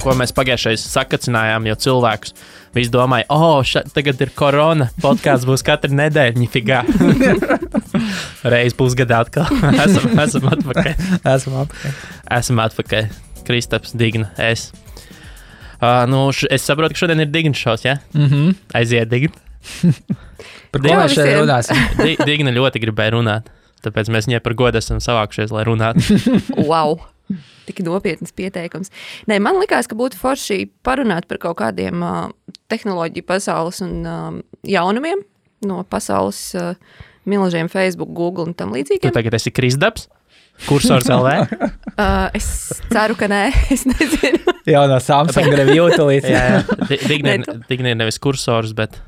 ko mēs pagājušais sakacinājām, jo cilvēkus visi domāja, tagad ir korona, podkāsts būs katru nedēļu, ņifigā. Reiz pusgadā atkal. Esam atpakaļ. Esam atpakaļ. Kristaps, Digna, es. Es saprotu, ka šodien ir Digna šovs, ja? Aiziet, Digna. Par ko mēs šeit runāsim? Digna ļoti gribēja runāt, tāpēc mēs viņai par godu esam savākušies, lai runātu. Wow! Tik nopietnas pieteikums. Nē, man likās, ka būtu forši parunāt par kaut kādiem tehnoloģiju pasaules un jaunumiem no pasaules milžiem Facebook, Google un tam līdzīgiem. Tu tagad esi Kristaps? Kursors LV? Es ceru, ka nē, es nezinu. Jā, no Samsung review tulīt. Jā. Digna ir nevis kursors, bet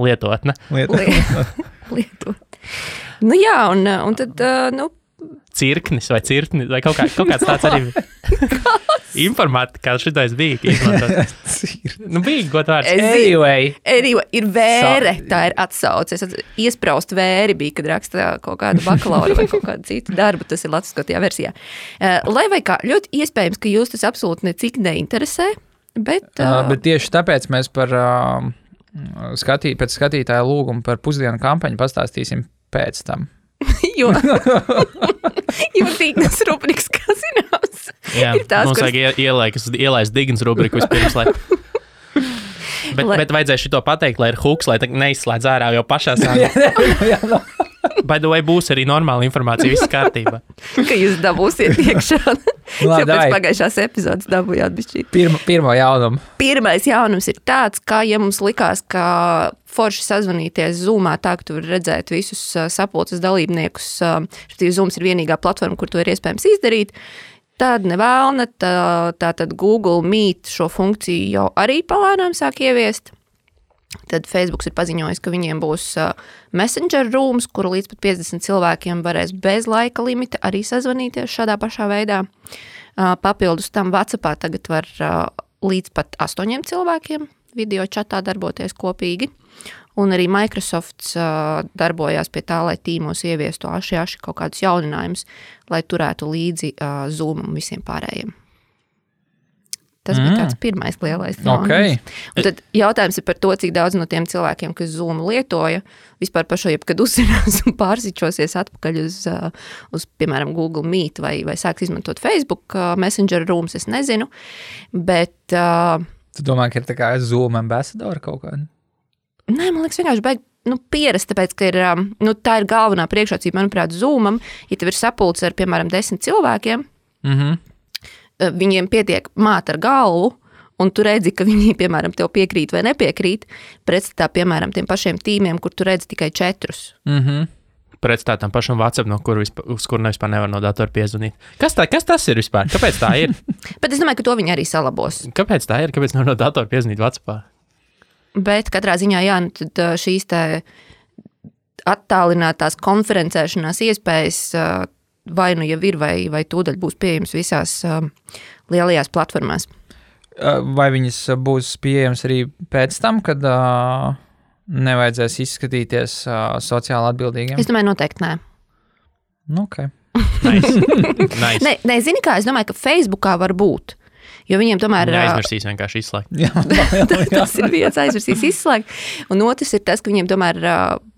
lietotne. Lietot. Nu jā, un tad, Cirknis vai cirknis, vai kaut kāds tāds arī informātikā šitais bija izmantot. Bija god vārds. Anyway, ir vēre, tā ir atsauce. Iespraust vēri bija, kad raksta kaut kādu bakalauru vai kaut kādu citu darbu, tas ir latviskotajā versijā. Lai vai kā, ļoti iespējams, ka jūs tas absolūti necik neinteresē, bet tieši tāpēc mēs par pēc skatītāja lūgumu par pusdienu kampaņu pastāstīsim pēc tam. Jo Dignas rubrikas, kā zināms, jā, ir tās, mums vajag ielaist Dignas rubriku vispirms, bet vajadzēja šito pateikt, lai ir huks, lai neizslēdz ārā jau pašā sākumā. By the way, būs arī normāla informācija, viss kārtībā. Ka jūs dabūsiet iekšā. Pēc pagājušās epizodes dabūjāt bišķīt. Pirmo jaunumu. Pirmais jaunums ir tāds, ka, ja mums likās, ka forši sazvanīties Zoomā tā, ka tu vari redzēt visus sapulces dalībniekus, Zooms ir vienīgā platforma, kur to ir iespējams izdarīt, tad nevēlna, tātad Google Meet šo funkciju jau arī palēnām sāk ieviest. Tad Facebooks ir paziņojis, ka viņiem būs Messenger rooms, kuru līdz pat 50 cilvēkiem varēs bez laika limita arī sazvanīties šādā pašā veidā. Papildus tam WhatsAppā tagad var līdz pat 8 cilvēkiem video čatā darboties kopīgi. Un arī Microsofts darbojās pie tā, lai tīmos ieviestu aši kaut kādus jauninājumus, lai turētu līdzi Zoom un visiem pārējiem. Tas bija tāds pirmais lielais jaunums. Okay. Un tad jautājums ir par to, cik daudz no tiem cilvēkiem, kas Zoom lietoja, vispār par šo jebkad uzzinās un pārsičosies atpakaļ uz piemēram, Google Meet vai sāks izmantot Facebook Messenger Rooms, es nezinu, bet... Tu domā, ka ir tā kā Zoom ambassador kaut kāda? Nē, man liekas vienkārši baigi pierast, tāpēc, ka ir, tā ir galvenā priekšrocība, manuprāt, Zoomam, ja tev ir sapulce ar, piemēram, 10 cilvēkiem, viņiem pietiek māt ar galvu, un tu redzi, ka viņi, piemēram, tev piekrīt vai nepiekrīt, pretstatā, piemēram, tiem pašiem tīmiem, kur tu redzi tikai 4. Pretstatā tam pašam WhatsApp, uz kuru vispār nevar no datora piezvanīt. Kas tas ir vispār? Kāpēc tā ir? Bet es domāju, ka to viņi arī salabos. Kāpēc tā ir? Kāpēc nevar no datora piezvanīt WhatsAppā? Bet katrā ziņā, jā, tad šīs te attālinātās konferencēšanās iespējas vai nu jau ir, vai tūdaļ būs pieejams visās lielajās platformās. Vai viņas būs pieejams arī pēc tam, kad nevajadzēs izskatīties sociāli atbildīgiem? Es domāju, noteikti nē. Okay. Nice. Nē, zini kā, es domāju, ka Facebookā var būt. Jo viņiem tomēr... Aizmirsīs vienkārši izslēgt. Jā. Tas ir viens, aizmirsīs izslēgt. Un otrs ir tas, ka viņiem tomēr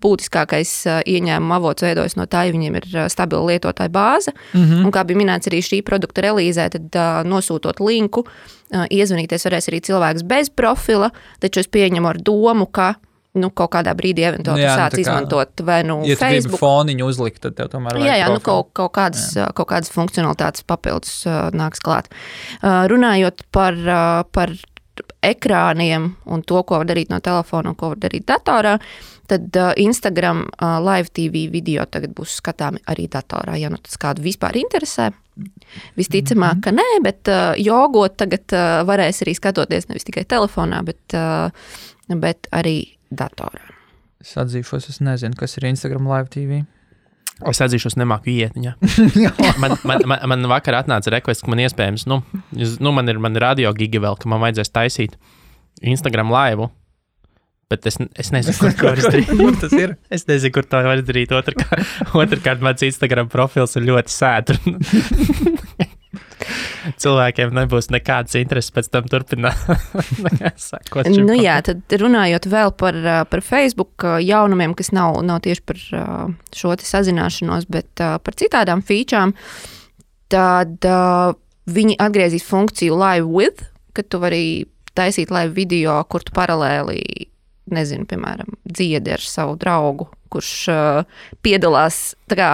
būtiskākais ieņēmuma avots veidojas no tā, ja viņiem ir stabila lietotāja bāze. Un kā bija minēts arī šī produkta relīzē, tad nosūtot linku, iezvanīties varēs arī cilvēks bez profila, taču es pieņemu ar domu, ka kaut kādā brīdī eventuāli sāc izmantot vai ja Facebook. Ja tu gribi foniņu uzlikt, tad tev tomēr vajag profilu. Kaut kādas funkcionalitātes papildus nāks klāt. Runājot par ekrāniem un to, ko var darīt no telefona un ko var darīt datorā, tad Instagram Live TV video tagad būs skatāmi arī datorā, ja tas kādu vispār interesē. Visticamāk, ka nē, bet jogot tagad varēs arī skatoties nevis tikai telefonā, bet arī datorā. Es atzīšos, es nezinu, kas ir Instagram Live TV. Es atzīšos, nemāku iet viņā. man vakar atnāca request, ka man iespējams, man ir radio giga vēl, ka man vajadzēs taisīt Instagram Live, bet es nezinu, kur to var izdarīt. Tas ir? Es nezinu, kur to var izdarīt. Otrkārt, mans Instagram profils ir ļoti sēdru. cilvēkiem nebūs nekādas intereses pēc tam turpināt. Sakot šim Nu jā, tad runājot vēl par Facebook jaunumiem, kas nav tieši par šo te sazināšanos, bet par citādām featurām, tad viņi atgriezīs funkciju Live With, kad tu vari taisīt live video, kur tu paralēli, nezinu, piemēram, dziedi ar savu draugu, kurš piedalās tā kā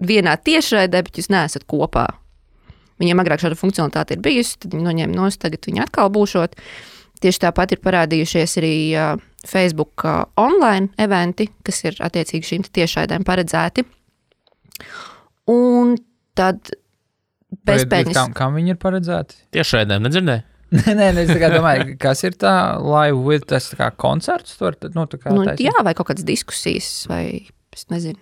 vienā tiešraidē, bet jūs neesat kopā. Viņiem agrāk šāda funkcionalitāte ir bijusi, tad viņi noņēma nost, tagad viņi atkal būšot. Tieši tāpat ir parādījušies arī Facebook online eventi, kas ir attiecīgi šīm tiešraidēm paredzēti. Un tad bezpēļņas. Kam viņi ir paredzēti? Tiešraidēm, nedzirdēji? Nē, es tā kā domāju, kas ir tā Live With, tas tā kā koncerts tur? Jā, vai kaut kādas diskusijas, vai es nezinu.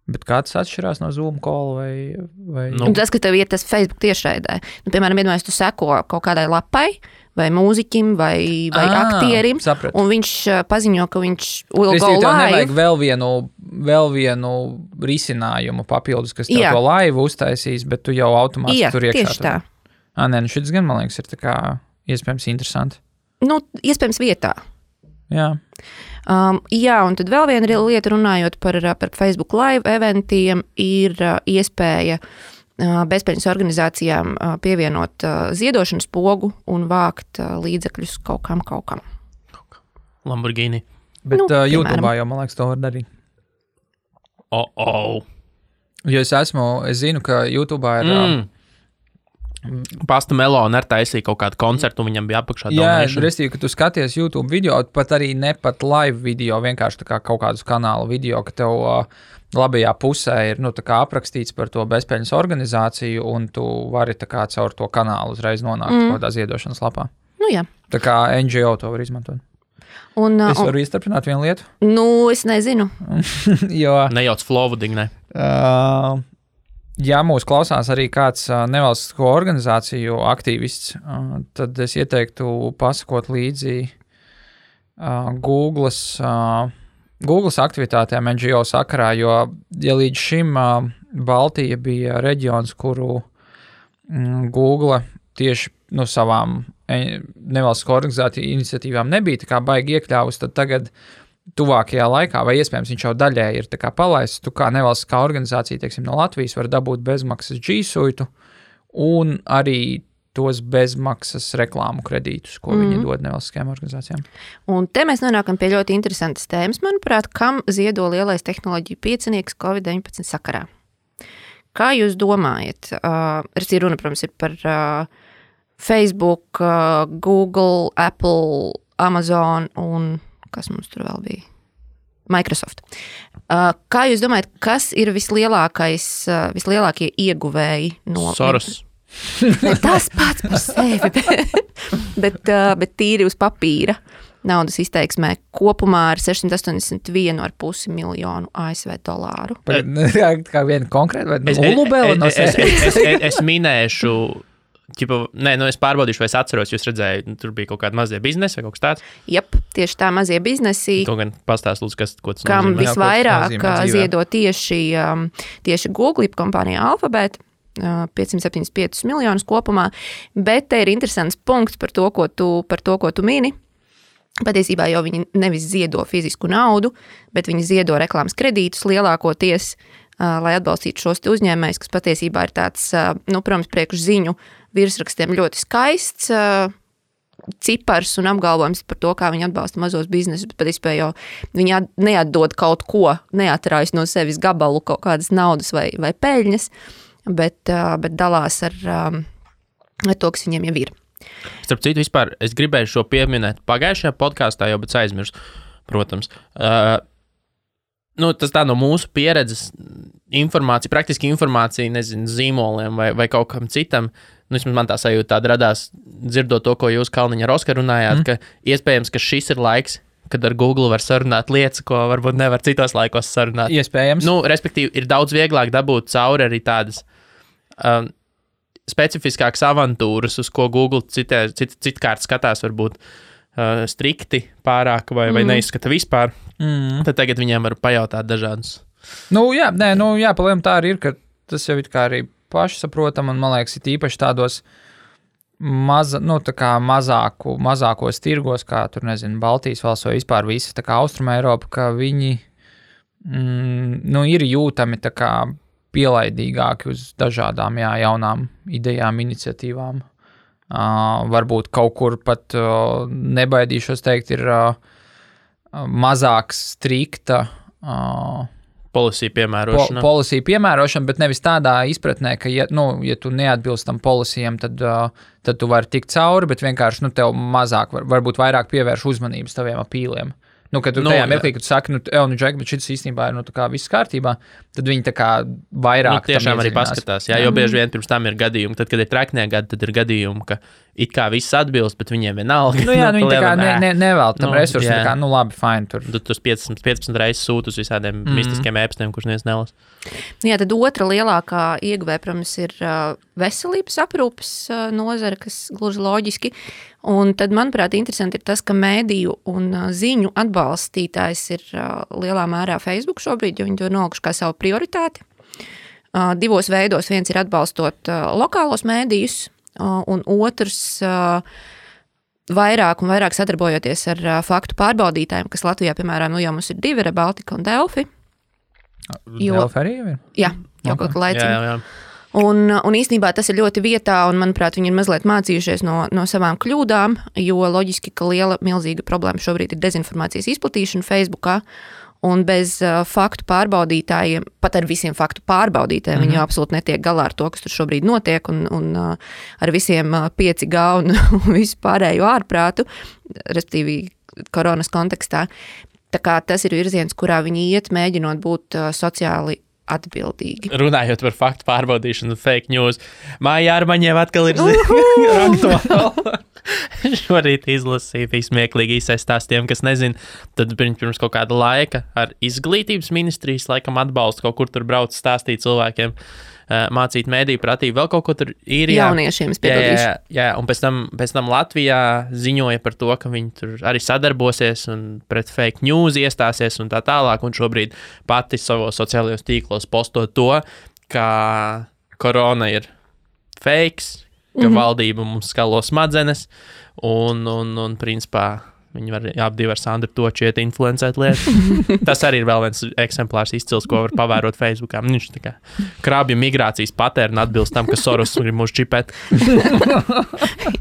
Bet kāds atšķirās no Zoom call vai... Nu. Tas, ka tev ir tas Facebook tiešraidē. Nu, piemēram, iedomājies, tu seko kaut kādai lapai, vai mūziķim, vai aktierim, sapratu. Un viņš paziņo, ka viņš will go live. Tev nevajag vēl vienu risinājumu papildus, kas tev to live uztaisīs, bet tu jau automātiski tur iekšā. Tieši tā. Nē, nu šis gan, man liekas, ir tā kā iespējams interesanti. Nu, iespējams vietā. Jā. Jā, un tad vēl viena lieta runājot par Facebook live eventiem ir iespēja bezpēļņas organizācijām pievienot ziedošanas pogu un vākt līdzekļus kaut kam. Lamborghini. Bet YouTube'ā jau, man liekas, to var darīt. Jo es zinu, ka YouTube'ā ir... Pasta Melona taisīja kaut kādu koncertu, un viņam bija apakšā Jā, donation. restīvi, ka tu skaties YouTube video, pat arī ne pat live video, vienkārši tā kā kaut kādus kanālu video, ka tev labajā pusē ir tā kā aprakstīts par to bezpēļņas organizāciju, un tu vari tā kā caur to kanālu uzreiz nonākt kādā ziedošanas lapā. Nu jā. Tā kā NGO to var izmantot. Es varu iestarpināt vienu lietu? Nu, es nezinu. Jo... Nejauc flowooding, ne? Ja mūs klausās arī kāds nevalstisko organizāciju aktīvists, tad es ieteiktu pasakot līdzi Googles aktivitātēm NGO sakarā, jo ja līdz šim Baltija bija reģions, kuru Google tieši savām nevalstisko organizāciju iniciatīvām nebija tā kā baigi iekļāvus, tad tagad tuvākajā laikā, vai iespējams viņš jau daļēji ir tā kā palaists, tu kā nevalstiskā organizācija, teiksim, no Latvijas var dabūt bezmaksas G Suite un arī tos bezmaksas reklāmu kredītus, ko viņi dod nevalstiskajām organizācijām. Un te mēs nonākam pie ļoti interesantas tēmas, manuprāt, kam ziedo lielais tehnoloģiju piecinieks COVID-19 sakarā. Kā jūs domājat? Runa, protams, ir par Facebook, Google, Apple, Amazon un kas mums tur vēl bija? Microsoft. Kā jūs domājat, kas ir vislielākie ieguvēji no... Soros. Tas pats par sevi, bet tīri uz papīra naudas izteiksmē kopumā ar 681,5 miljonu ASV dolāru. Kā viena konkrēta vai nulubēla no sevis? Es minēšu... es pārbaudīšu, vai es atceros, jūs redzēju, tur bija kaut kāda mazie biznesi vai kaut kas tāds? Jep, tieši tā mazie biznesi. To gan pastāst, lūdzu, ko tas kam nozīmē. Visvairāk ziedo tieši Google kompānija Alphabet, 575 miljonus kopumā, bet te ir interesants punkts par to, ko tu mini. Patiesībā jau viņi nevis ziedo fizisku naudu, bet viņi ziedo reklāmas kredītus lielākoties, lai atbalstītu šos te uzņēmējus, kas patiesībā ir tāds, protams, priekš ziņu virsrakstiem ļoti skaists cipars un apgalvojums par to, kā viņi atbalsta mazos biznesus, bet patiesībā jau viņi neatdod kaut ko, neatrājas no sevis gabalu kaut kādas naudas vai peļņas, bet dalās ar to, kas viņiem jau ir. Starp citu, vispār, es gribēju šo pieminēt pagājušajā podkāstā, jau, bet aizmirsu, protams. Tas tā no mūsu pieredzes informācija, praktiski informācija, nezinu, zīmoliem vai kaut kam citam. Man tā sajūta tāda radās, dzirdot to, ko jūs, Kalniņa, ar Oskaru runājāt, ka iespējams, ka šis ir laiks, kad ar Google var sarunāt lietas, ko varbūt nevar citos laikos sarunāt. Iespējams. Respektīvi, ir daudz vieglāk dabūt cauri arī tādas specifiskākas avantūras, uz ko Google citkārt skatās varbūt strikti pārāk vai neizskata vispār. Tad tagad viņiem var pajautāt dažādus. Jā, palēm tā arī ir, ka tas jau it kā arī pašsaprotama, un, man liekas, ir īpaši tādos mazākos tirgos, kā tur, nezinu, Baltijas valsts vai vispār visa tā kā Austruma Eiropa, ka viņi ir jūtami tā kā pielaidīgāki uz dažādām jaunām idejām, iniciatīvām. Varbūt kaut kur pat nebaidīšos teikt, ir mazāk strikta policy piemērošana. Policy piemērošana, bet nevis tādā izpratnē, ka, ja tu neatbilst tam policijam, tad tu vari tikt cauri, bet vienkārši, tev mazāk, varbūt vairāk pievērš uzmanības taviem apīliem. Kad tu tajā mirklī, kad tu saki, Džek, bet šis īstenībā ir, tā kā viss kārtībā, tad viņi tā kā vairāk tiešām arī paskatās, jo bieži vien pirms tam ir gadījumi, tad, kad ir traknie gadi, tad ir gadījumi, ka it kā viss atbilst, bet viņiem vienalga. Viņi tā kā nevēl tam resursu, tā kā, labi, fine, tur. Tu 15 reizes sūti uz visādiem mistiskiem ēpstiem, kurš neviens nelas. Jā, tad otra lielākā ieguvēja, protams, ir veselības aprūpes nozara, kas gluži loģiski. Un tad, manuprāt, interesanti ir tas, ka mēdīju un ziņu atbalstītājs ir lielā mērā Facebook šobrīd, jo viņi to nolikuši kā savu prioritāti. Divos veidos. Viens ir atbalstot lokālos mēdījus, un otrs vairāk un vairāk sadarbojoties ar faktu pārbaudītājiem, kas Latvijā, piemēram, jau mums ir 2, Baltika un Delfi. Delfi arī jau ir? Jā, jau kaut kā laicīgi. Jā. Un īstenībā tas ir ļoti vietā, un, manuprāt, viņi ir mazliet mācījušies no savām kļūdām, jo loģiski, ka milzīga problēma šobrīd ir dezinformācijas izplatīšana Facebookā, un bez faktu pārbaudītājiem, pat ar visiem faktu pārbaudītājiem, viņi absolūti netiek galā ar to, kas tur šobrīd notiek, un ar visiem 5G un visu pārējo ārprātu, respektīvi koronas kontekstā. Tā kā tas ir virziens, kurā viņi iet, mēģinot būt sociāli atbildīgi. Runājot par faktu pārbaudīšanu, fake news, Māja Armaņeva atkal ir aktuāla. Šorīt izlasīja smieklīgi izsaistās tiem, kas nezin, tad pirms kaut kāda laika ar izglītības ministrijas laikam atbalstu kaut kur tur brauc stāstīt cilvēkiem, mācīt mēdīju pratību, vēl kaut ko tur ir. Jauniešiem spiedodīšu. Jā, un pēc tam Latvijā ziņoja par to, ka viņi tur arī sadarbosies un pret fake news iestāsies un tā tālāk, un šobrīd pati savos sociālajos tīklos posto to, ka korona ir fakes, ka valdība mums skalo smadzenes, un principā viņi var apdivi ar Sandru Točieti influencēt lietas. Tas arī ir vēl viens eksemplārs izcils, ko var pavērot Facebookā. Viņš tā kā krābju migrācijas patērna atbilst tam, ka Soros grib mūs čipēt.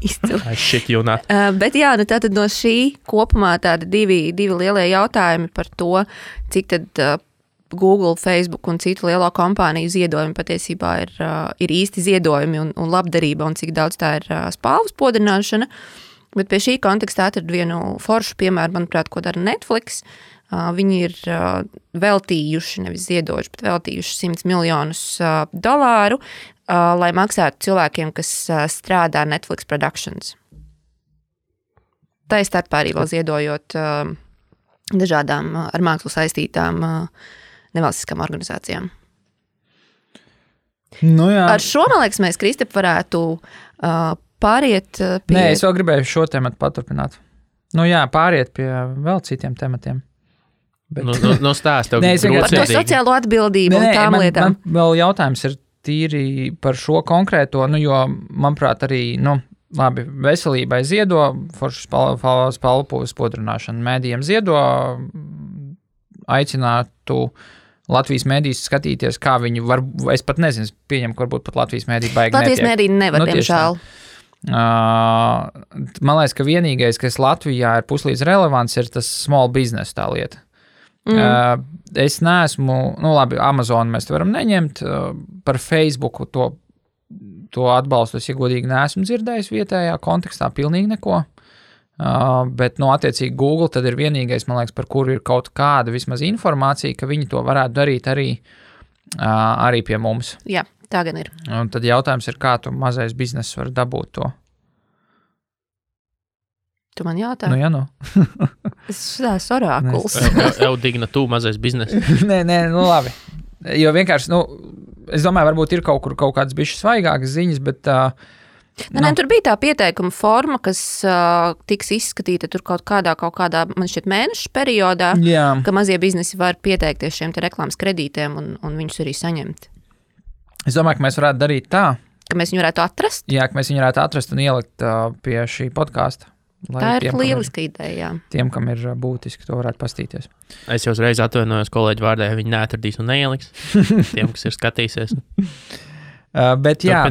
Izcils. Shit, you not. Bet jā, tātad no šī kopumā tādi divi lielie jautājumi par to, cik tad Google, Facebook un citu lielo kompāniju ziedojumi patiesībā ir īsti ziedojumi un labdarība, un cik daudz tā ir spalvas podrināšana. Bet pie šī kontekstā atradu vienu foršu piemēru, manuprāt, ko dara Netflix. Viņi ir veltījuši, nevis ziedojuši, bet veltījuši $100 miljonus, lai maksātu cilvēkiem, kas strādā Netflix Productions. Tā ir starpā arī vēl ziedojot dažādām ar mākslu saistītām nevalstiskām organizācijām. Nu jā. Ar šo, man liekas, mēs, Kristap, varētu pāriet pie... Nē, es vēl gribēju šo tematu paturpināt. Pāriet pie vēl citiem tematiem. Bet... stāst tev. Par to sociālo atbildību un tām lietām. Man vēl jautājums ir tīri par šo konkrēto, jo, manuprāt, arī, labi, veselībai ziedo, foršas spalvas podrināšana, mēdījiem ziedo, aicinātu Latvijas mēdījus skatīties, kā viņi var, es pat nezinu, pieņem, ka varbūt pat Latvijas mēdī baigi netiek. Latvijas mēdī nevar, diemžēl. Man liekas, ka vienīgais, kas Latvijā ir puslīdz relevants, ir tas small business tā lieta. Es neesmu, labi, Amazon mēs te varam neņemt, par Facebooku to atbalstu, es iegodīgi neesmu dzirdējis vietējā kontekstā pilnīgi neko. Bet, attiecīgi Google tad ir vienīgais, man liekas, par kuru ir kaut kāda vismaz informācija, ka viņi to varētu darīt arī pie mums. Jā, tā gan ir. Un tad jautājums ir, kā tu mazais bizness var dabūt to? Tu man jautā? Es šitās orākuls. Digna tu mazais bizness. Nē, labi. Jo vienkārši, es domāju, varbūt ir kaut kādas bišķi svaigākas ziņas, bet... Tur bija tā pieteikuma forma, kas tiks izskatīta tur kaut kādā, man šķiet, mēnešu periodā, ka mazie biznesi var pieteikties šiem te reklāmas kredītiem un viņus arī saņemt. Es domāju, ka mēs varētu darīt tā. Ka mēs viņu varētu atrast? Jā, ka mēs viņu varētu atrast un ielikt pie šī podkāsta. Tā ir lieliska ideja, jā. Tiem, kam ir būtiski, to varētu pastīties. Es jau uzreiz atvainojos kolēģi vārdā, ja viņi neatradīs un neieliks. Tiem, kas ir skatīsies. Bet jā,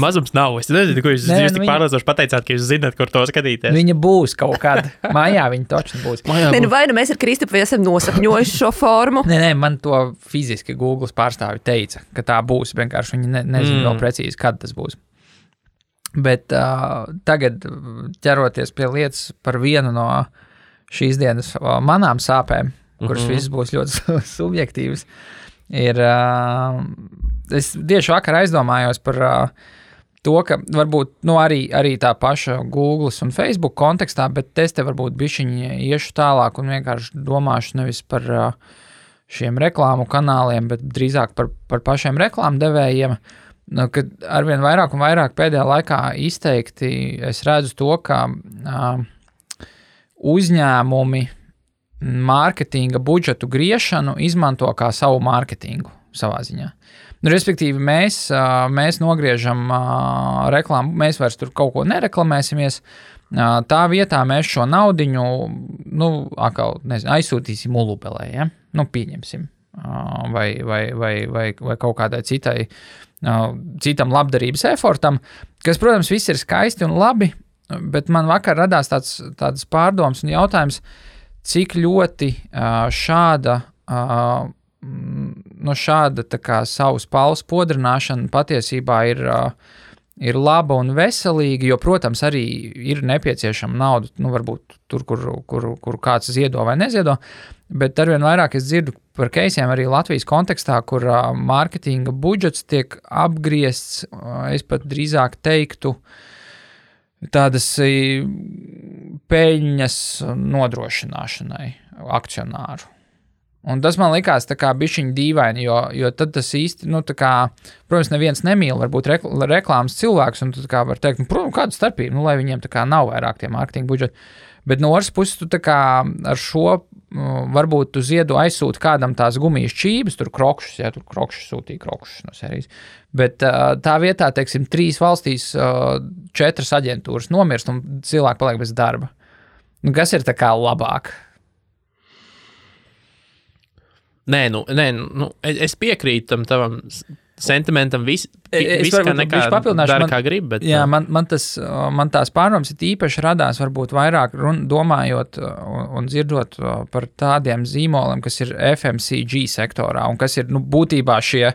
Mazums nav. Es nezinu, ko jūs tik pārliecinoši pateicāt, ka jūs zināt, kur to skatīties. Viņa būs kaut kad. Mājā viņa točni būs. Vai nu mēs ar Kristupu esam nosapņojuši šo formu? Nē, man to fiziski Google pārstāvi teica, ka tā būs. Vienkārši viņi nezina vēl precīzi, kad tas būs. Bet tagad ķeroties pie lietas par vienu no šīs dienas manām sāpēm, kuras visas būs ļoti subjektīvas, ir, es tieši vakar aizdomājos par to, ka varbūt arī tā paša Google un Facebook kontekstā, bet es te varbūt bišķiņi iešu tālāk un vienkārši domāšu nevis par šiem reklāmu kanāliem, bet drīzāk par pašiem reklāmu devējiem. Kad arvien vairāk un vairāk pēdējā laikā izteikti es redzu to, ka uzņēmumi mārketinga budžetu griešanu izmanto kā savu mārketingu savā ziņā. Respektīvi, mēs nogriežam reklāmu, mēs vairs tur kaut ko nereklamēsimies, tā vietā mēs šo naudiņu, aizsūtīsim Ulubelē, ja? Pieņemsim, vai kaut kādai citam labdarības efortam, kas, protams, viss ir skaisti un labi, bet man vakar radās tāds pārdoms un jautājums, cik ļoti šāda tā kā savas paules podrināšana patiesībā ir laba un veselīga, jo, protams, arī ir nepieciešama nauda, varbūt tur, kur kāds ziedo vai neziedo, bet arvien vairāk es dzirdu par keisiem arī Latvijas kontekstā, kur mārketinga budžets tiek apgriezts, es pat drīzāk teiktu, tādas peļņas nodrošināšanai akcionāru. Un tas man likās tā kā bišķiņ dīvaini, jo tad tas īsti, protams, neviens nemīl varbūt reklāmas cilvēks, un tu tā kā var teikt, kāda starpība, lai viņiem tā kā nav vairāk tie mārketinga budžeti. Bet no otras puses, tu tā kā ar šo, varbūt tu ziedu aizsūti kādam tās gumijas čības, tur krokšus, ja tur krokšus sūtīja krokšus no serijas. Bet tā vietā, teiksim, 3 valstīs 4 aģentūras nomirst un cilvēki paliek bez darba. Kas ir tā kā labāk? Nē, es piekrītu tam tavam sentimentam, viss kā nekā dara, kā grib, bet... Jā, man tās pārdomas īpaši radās varbūt vairāk domājot un dzirdot par tādiem zīmoliem, kas ir FMCG sektorā un kas ir, būtībā šie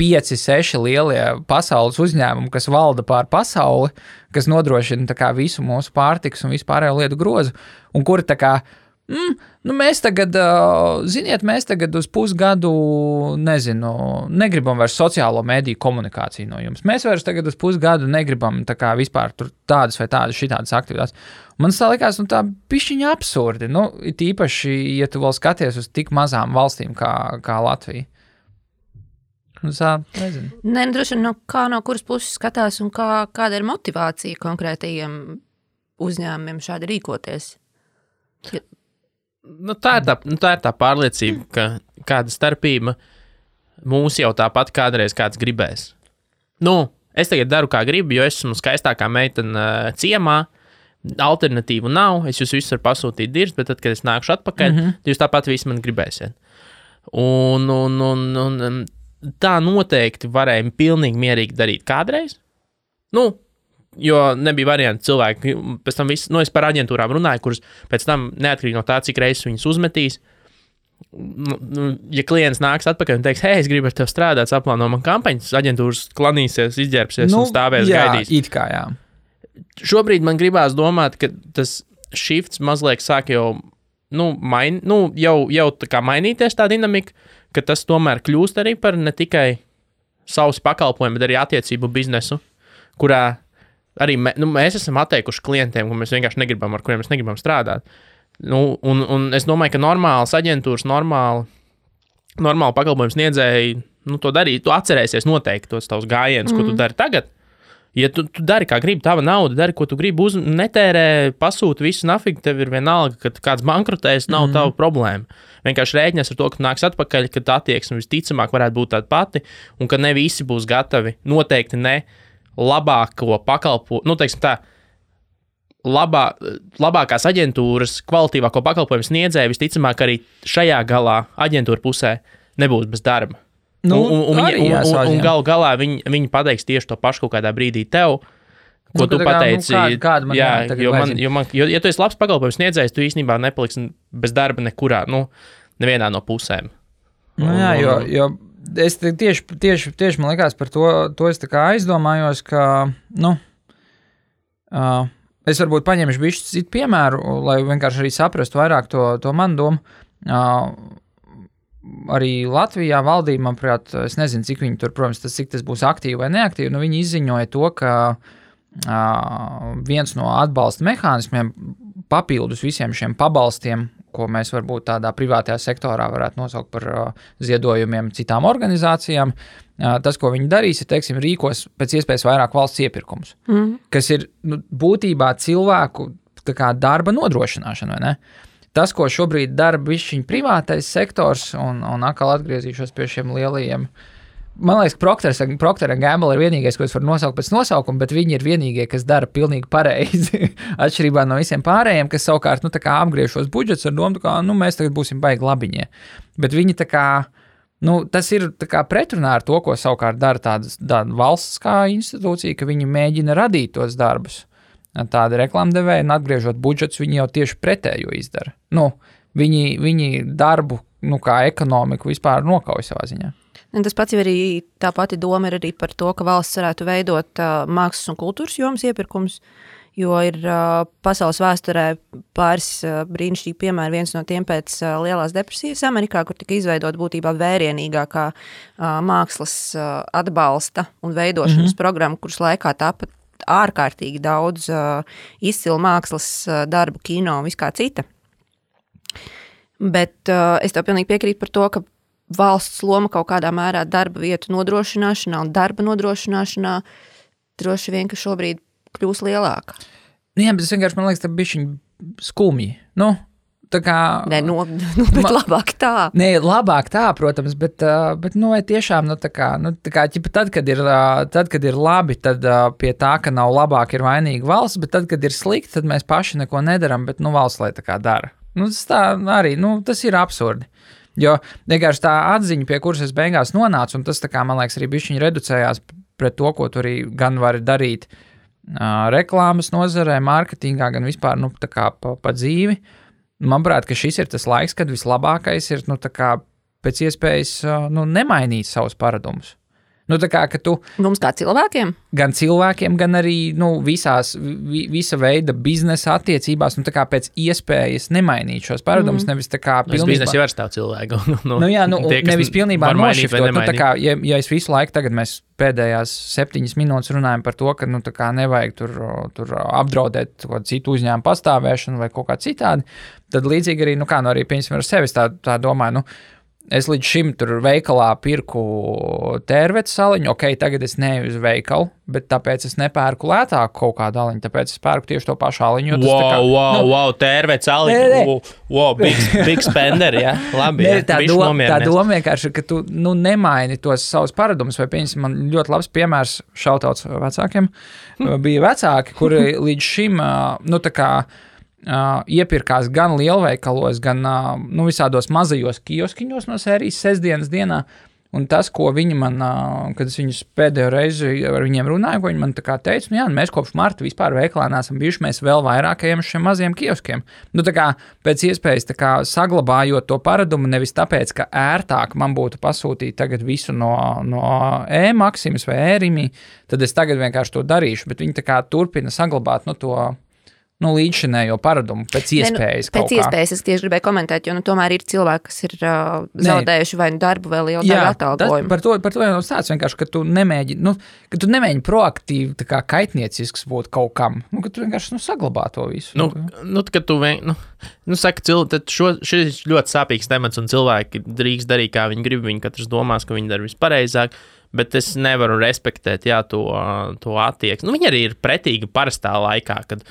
5-6 lielie pasaules uzņēmumi, kas valda pār pasauli, kas nodrošina tā kā visu mūsu pārtikas un vispārējo lietu grozu, un kuri tā kā mēs tagad, mēs tagad uz pusgadu, negribam vairs sociālo mediju komunikāciju no jums. Mēs vairs tagad uz pusgadu negribam tā kā vispār tur tādas vai tādas šitādas aktivitātes. Man tā likās, tā pišķiņa absurdi. Tīpaši, ja tu vēl skaties uz tik mazām valstīm kā Latvija. Nezinu. Droši vien, kā no kuras puses skatās un kāda ir motivācija konkrētajiem uzņēmumiem šādi rīkoties? Tā ir tā pārliecība, ka kāda starpība mūs jau tāpat kādreiz kāds gribēs. Es tagad daru, kā gribu, jo esmu skaistākā meitene ciemā, alternatīvu nav, es jūs visus varu pasūtīt dirzt, bet tad, kad es nākšu atpakaļ, jūs tāpat visi man gribēsiet. Un tā noteikti varēja pilnīgi mierīgi darīt kādreiz. Jo nebija varianti cilvēki, pēc tam viss, es par aģentūrām runāju, kuras pēc tam neatkarīgi no tā, cik reizes viņas uzmetīs, ja klients nāks atpakaļ un teiks, hei, es gribu ar tevi strādāt, saplāno man kampaņas, aģentūras klanīsies, izģērbsies un stāvēs gaidīs. It kā, jā. Šobrīd man gribās domāt, ka tas shifts mazliet sāk jau, jau tā kā mainīties tā dinamika, ka tas tomēr kļūst arī par ne tikai savus pakalpojumu, bet arī attiecību biznesu, kurā arī mēs esam atteikuši klientiem, kur mēs vienkārši negribam, ar kuriem mēs negribam strādāt. Un es domāju, ka normālas aģentūras, normāli pakalpojums sniedzēji, to darīt, tu atcerēsies noteikti tos tavus gājienus, ko tu dari tagad, Ja tu dari, kā gribi, tava nauda, dari, ko tu gribi, netērē, pasūti visu nafigu, tev ir vienalga, ka kāds bankrotēs, nav tava problēma. Vienkārši rēķinies ar to, ka nāks atpakaļ, kad attieksme visticamāk varētu būt tāda pati, un ka ne visi būs gatavi, noteikti ne labāko pakalpojumu, teiksim tā, labākās aģentūras, kvalitīvāko pakalpojumu sniedzēju, visticamāk arī šajā galā aģentūra pusē nebūs bez darba. Un galā viņi pateiks tieši to pašu kaut kādā brīdī tev, ko tu pateici. Ja tu esi labs pakalpojums sniedzējs, tu īstenībā nepaliksi bez darba nekurā, nevienā no pusēm. Jo es tieši man likās par to es tā kā aizdomājos, ka, es varbūt paņemšu bišķi citu piemēru, lai vienkārši arī saprastu vairāk to manu domu. Arī Latvijā valdība, manuprāt, es nezinu, cik viņi tur, protams, cik tas būs aktīvi vai neaktīvi, viņi izziņoja to, ka viens no atbalsta mehānismiem papildus visiem šiem pabalstiem, ko mēs varbūt tādā privātajā sektorā varētu nosaukt par ziedojumiem citām organizācijām, tas, ko viņi darīs, ir, teiksim, rīkos pēc iespējas vairāk valsts iepirkums, kas ir būtībā cilvēku tā kā darba nodrošināšana, vai ne? Tas, ko šobrīd dara bišķiņ privātais sektors, un atkal atgriezīšos pie šiem lielajiem, man liekas, Procter & Gamble ir vienīgais, ko es varu nosaukt pēc nosaukuma, bet viņi ir vienīgie, kas dara pilnīgi pareizi, atšķirībā no visiem pārējiem, kas savukārt, tā kā apgriež šos budžets ar domu, kā, mēs tagad būsim baigi labiņie. Bet viņi tā kā, tas ir tā kā pretrunā ar to, ko savukārt dara tāda valsts kā institūcija, ka viņi mēģina radīt tos darbus. Tāda reklāmdevēja, un atgriežot budžets, viņi jau tieši pretējo izdara. Viņi darbu, kā ekonomiku vispār nokauj savā ziņā. Un tas pats jau arī, tā pati doma ir arī par to, ka valsts varētu veidot mākslas un kultūras jomas iepirkums, jo ir pasaules vēsturē pāris brīnišķīgi piemēri, viens no tiem pēc Lielās depresijas Amerikā, kur tika izveidot būtībā vērienīgākā mākslas atbalsta un veidošanas programma, kuras laikā tāpat ārkārtīgi daudz izcilu mākslas darbu, kino un viskā cita. Bet es tev pilnīgi piekrītu par to, ka valsts loma kaut kādā mērā darba vietu nodrošināšanā un darba nodrošināšanā droši vien, ka šobrīd kļūs lielāka. Jā, bet es vienkārši, man liekas, tā bišķiņ skumji. Tā kā... Nē, bet labāk tā. Nē, labāk tā, protams, bet vai tiešām, tā kā, tad, kad ir labi, tad pie tā, ka nav labāk, ir vainīga valsts, bet tad, kad ir slikti, tad mēs paši neko nedaram, bet, valsts lai tā kā dara. Tas tā arī, tas ir absurdi. Jo vienkārši tā atziņa, pie kuras es beigās nonācu, un tas, tā kā, man liekas, arī bišķiņ reducējās pret to, ko tu arī gan vari darīt reklāmas nozarē, mārketingā, gan vispār, tā kā pa dzīvi. Manuprāt, ka šis ir tas laiks, kad vislabākais ir, tā kā pēc iespējas, nemainīt savus paradumus. Tā kā, ka tu... Mums kā cilvēkiem? Gan cilvēkiem, gan arī, visa veida biznesa attiecībās, tā kā pēc iespējas nemainīt šos paradumus, nevis tā kā pilnībā... Biznesa jau var stāv cilvēku. Tie, nevis pilnībā nošiftot, tā kā, ja es visu laiku tagad mēs pēdējās 7 minūtes runājam par to, ka, tā kā nevajag tur apdraudēt citu uzņēmumu pastāvēšanu vai kaut kā citādi, tad līdzīgi arī, arī piemēram ar sevis tā domāju, es līdz šim tur veikalā pirku tērvetes saliņu, tagad es neeju uz veikalu, bet tāpēc es nepērku lētāku kaut kādu aliņu, tāpēc es pērku tieši to pašu aliņu. Wow, tērvetes aliņu, big spender, jā, labi. Tā doma vienkārši, ka tu nemaini tos savus paradumus, vai piemēram, man ļoti labs piemērs šautauts vecākiem, bija vecāki, kuri līdz šim, iepirkās gan lielveikalos, gan visādos mazajos kioskiņos no sērijas sestdienas dienā, un tas, ko viņi man, kad es viņus pēdējo reizi ar viņiem runāju, ko viņi man tā kā teica, mēs kopš marta vispār veikalā neesam bijuši, mēs vēl vairāk ejam uz šiem mazajiem kioskiem. Tā kā pēc iespējas tā kā saglabājot to paradumu, nevis tāpēc, ka ērtāk man būtu pasūtīt tagad visu no e-Maksimas vai e-Rimi, tad es tagad vienkārši to darīšu, bet viņi tā kā turpina saglabāt to līdzšinējo paradumu pēc iespējas. Pēc iespējas es tieši gribēju komentēt, jo tomēr ir cilvēki, kas ir zaudējuši vai darbu vai lielu darbu atalgojumu. Par to jau stāsts vienkārši, ka tu nemēģini proaktīvi tā kā kaitniecisks būt kaut kam, ka tu vienkārši saglabā to visu. Kad tu saka, tad šis ļoti sāpīgs temats un cilvēki drīkst darīt, kā viņi grib, viņi katrs domās, ka viņi dara vispareizāk, Bet es nevaru respektēt to attieksmi. Nu, viņi arī ir pretīgi parastā laikā, kad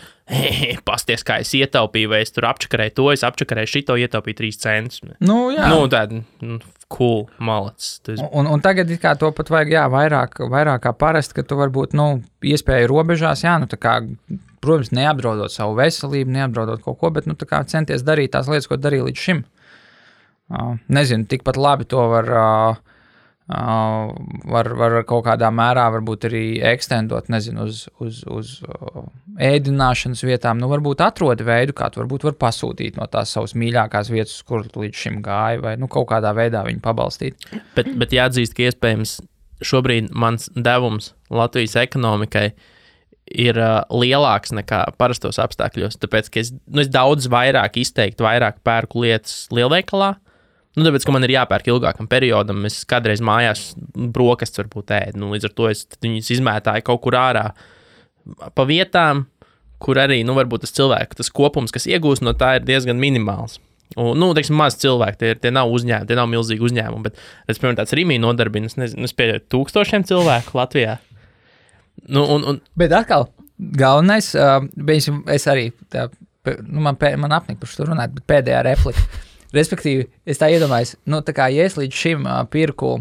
pasties, kā es ietaupīju, vai es tur apčakarēju to, es apčakarēju šito, ietaupīju 3 centus. Nu, jā. Nu, tāda cool, malacis. Un tagad kā to pat vajag, jā, vairāk kā parasti, ka tu varbūt, iespēju robežās, jā, tā kā, protams, neapdraudot savu veselību, neapdraudot kaut ko, bet, tā kā centies darīt tās lietas, ko darīju līdz šim. Nezinu, tikpat labi to var kaut kādā mērā varbūt arī ekstendot, nezinu, uz ēdināšanas vietām. Nu, varbūt atrodi veidu, kā tu varbūt var pasūtīt no tās savas mīļākās vietas, kur līdz šim gāja, vai kaut kādā veidā viņu pabalstīt. Bet jāatzīst, ka iespējams šobrīd mans devums Latvijas ekonomikai ir lielāks nekā parastos apstākļos, tāpēc, ka es daudz vairāk pērku lietas lielveikalā. Nu, tāpēc, ka man ir jāpērk ilgākam periodam, es kādreiz mājās brokastis varbūt ēdu. Nu, līdz ar to es viņus izmētāju kaut kur ārā pa vietām, kur arī, varbūt tas kopums, kas iegūst no tā, ir diezgan minimāls. Un, teiksim, maz cilvēki, tie nav uzņēmumi, tie nav milzīgi uzņēmumi, bet, piemēram, tāds Rimī nodarbina, es pieļauju 1000 cilvēku Latvijā. Bet atkal, galvenais, es arī, man apnika par šo runāt, bet pēdējā replika. Respektīvi, es tā iedomājos, tā kā ja es līdz šim pirku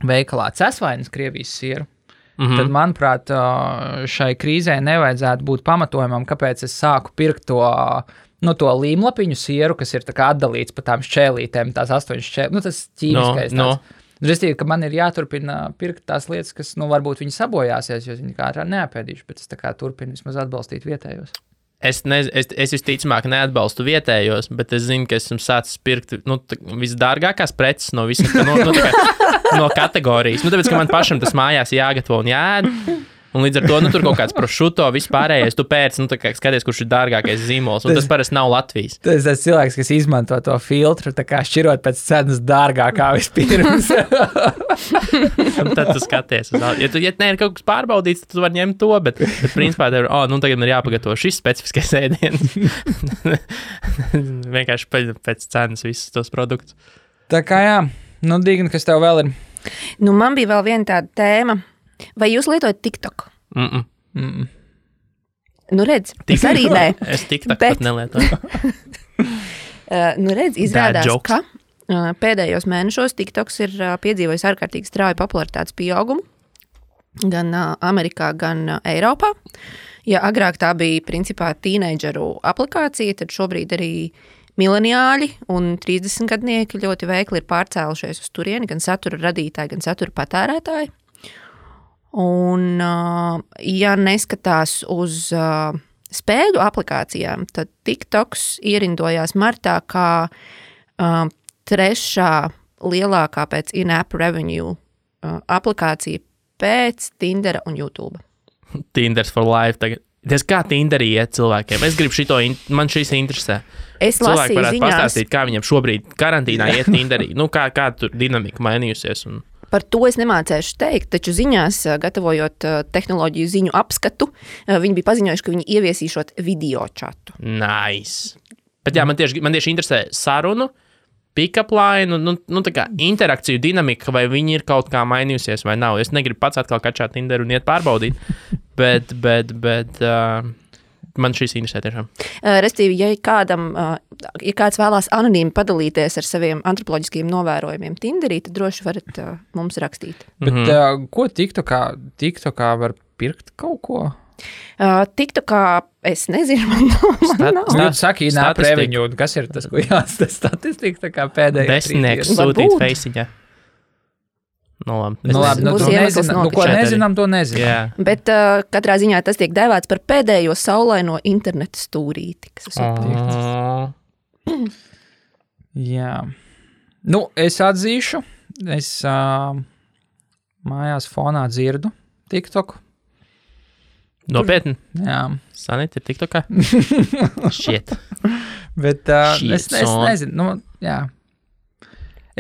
veikalā cesvainas Krievijas sieru, tad, manuprāt, šai krīzē nevajadzētu būt pamatojumam, kāpēc es sāku pirkt to līmlapiņu sieru, kas ir tā kā atdalīts pa tām šķēlītēm, tās 8 šķēlītes, tas ķīmiskais tāds. Respektīvi, ka man ir jāturpina pirkt tās lietas, kas, varbūt viņi sabojāsies, jo viņi kā ārā neapēdīšu, bet es tā kā turpinu vismaz atbalstīt vietējos. Es visticamāk neatbalstu vietējos, bet es zinu, ka esmu sācis pirkt visdārgākās preces no visas no kategorijas. Tāpēc, ka man pašam tas mājās jāgatavo un jāēd. Un līdz ar to tur kaut kāds prosciutto vispārējais, tu pēc, skaties, kurš ir dārgākais zīmols. Un tas parasti nav Latvijas. Tas ir cilvēks, kas izmanto to filtru, tā kā šķirot pēc cenas dārgākā vispirms. Un tad tu skaties. Ja ir kaut kas pārbaudīts, tad tu vari ņemt to, bet principā tev tagad man ir jāpagatavo šis specifiskais ēdiens. Vienkārši pēc cenas visus tos produktus. Tā kā jā, Digna, kas tev vēl ir? Man bija vēl viena tāda tēma. Vai jūs lietojat TikTok? Redz, es arī nē. Es TikTok pat nelietoju. Redz, izrādās, ka pēdējos mēnešos TikToks ir piedzīvojis ārkārtīgi strauju popularitātes pieaugumu gan Amerikā, gan Eiropā. Ja agrāk tā bija principā tīneidžeru aplikācija, tad šobrīd arī mileniāļi un 30-gadnieki ļoti veikli ir pārcēlušies uz turieni, gan satura radītāji, gan satura patērētāji. Un, ja neskatās uz spēļu aplikācijām, tad TikToks ierindojās martā kā trešā lielākā pēc in-app revenue aplikācija pēc Tindera un YouTube. Tinders for life tagad. Tas kā Tinderī iet cilvēkiem? Es gribu man šīs interesē. Cilvēki varētu pastāstīt, kā viņiem šobrīd karantīnā iet Tinderī. Kā tur dinamika mainījusies un... Par to es nemācēšu teikt, taču ziņās, gatavojot tehnoloģiju ziņu apskatu, viņi bija paziņojuši, ka viņi ieviesīšot video čatu. Nice. Bet jā, man tieši interesē sarunu, pick-up line, tā kā interakciju dinamika, vai viņi ir kaut kā mainījusies vai nav. Es negribu pats atkal kačāt Tinderu un iet pārbaudīt, bet man šīs interesē tiešām. Restīvi, ja kāds vēlās anonīmi padalīties ar saviem antropoloģiskiem novērojumiem Tinderī, tad droši varat mums rakstīt. Bet ko TikTokā var pirkt kaut ko? TikTokā es nezinu, man nav. Jūs saki, in-app revenue, kas ir tas, ko jāstas statistika, tā kā pēdējā Desmitnieks sūtīt feisiņā. Ko nezinām, to nezinām. Yeah. Bet katrā ziņā tas tiek dēvēts par pēdējo saulaino interneta stūrīti, kas esmu Jā. Es atzīšu, es mājās fonā dzirdu TikToku. Nopietni? Jā. Sanīt ir TikTokā? Shit. Bet es nezinu, jā.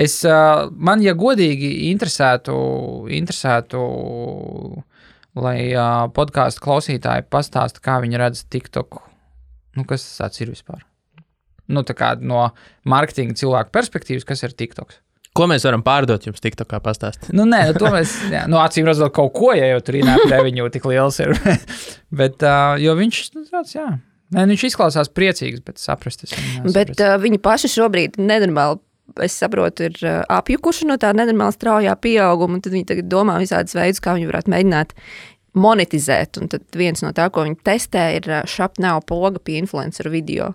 Man, ja godīgi interesētu, lai podcastu klausītāji pastāsta, kā viņi redz TikToku. Kas tas tāds ir vispār? Tā kā no marketinga cilvēku perspektīvas, kas ir TikToks? Ko mēs varam pārdot jums TikTokā pastāstīt? Nē, to mēs, acīm redzot kaut ko, ja jau tur īnāk reviņu tik liels ir. Bet, jo viņš, tāds, viņš izklausās priecīgs, bet saprast es viņu nesaprast. Bet viņi paši šobrīd nenormāli, es saprotu, ir apjukuši no tā nenormāli straujā pieauguma, un tad viņi tagad domā visādas veidus, kā viņi varētu mēģināt monetizēt, un tad viens no tā, ko viņi testē, ir Shop Now poga pie influenceru video.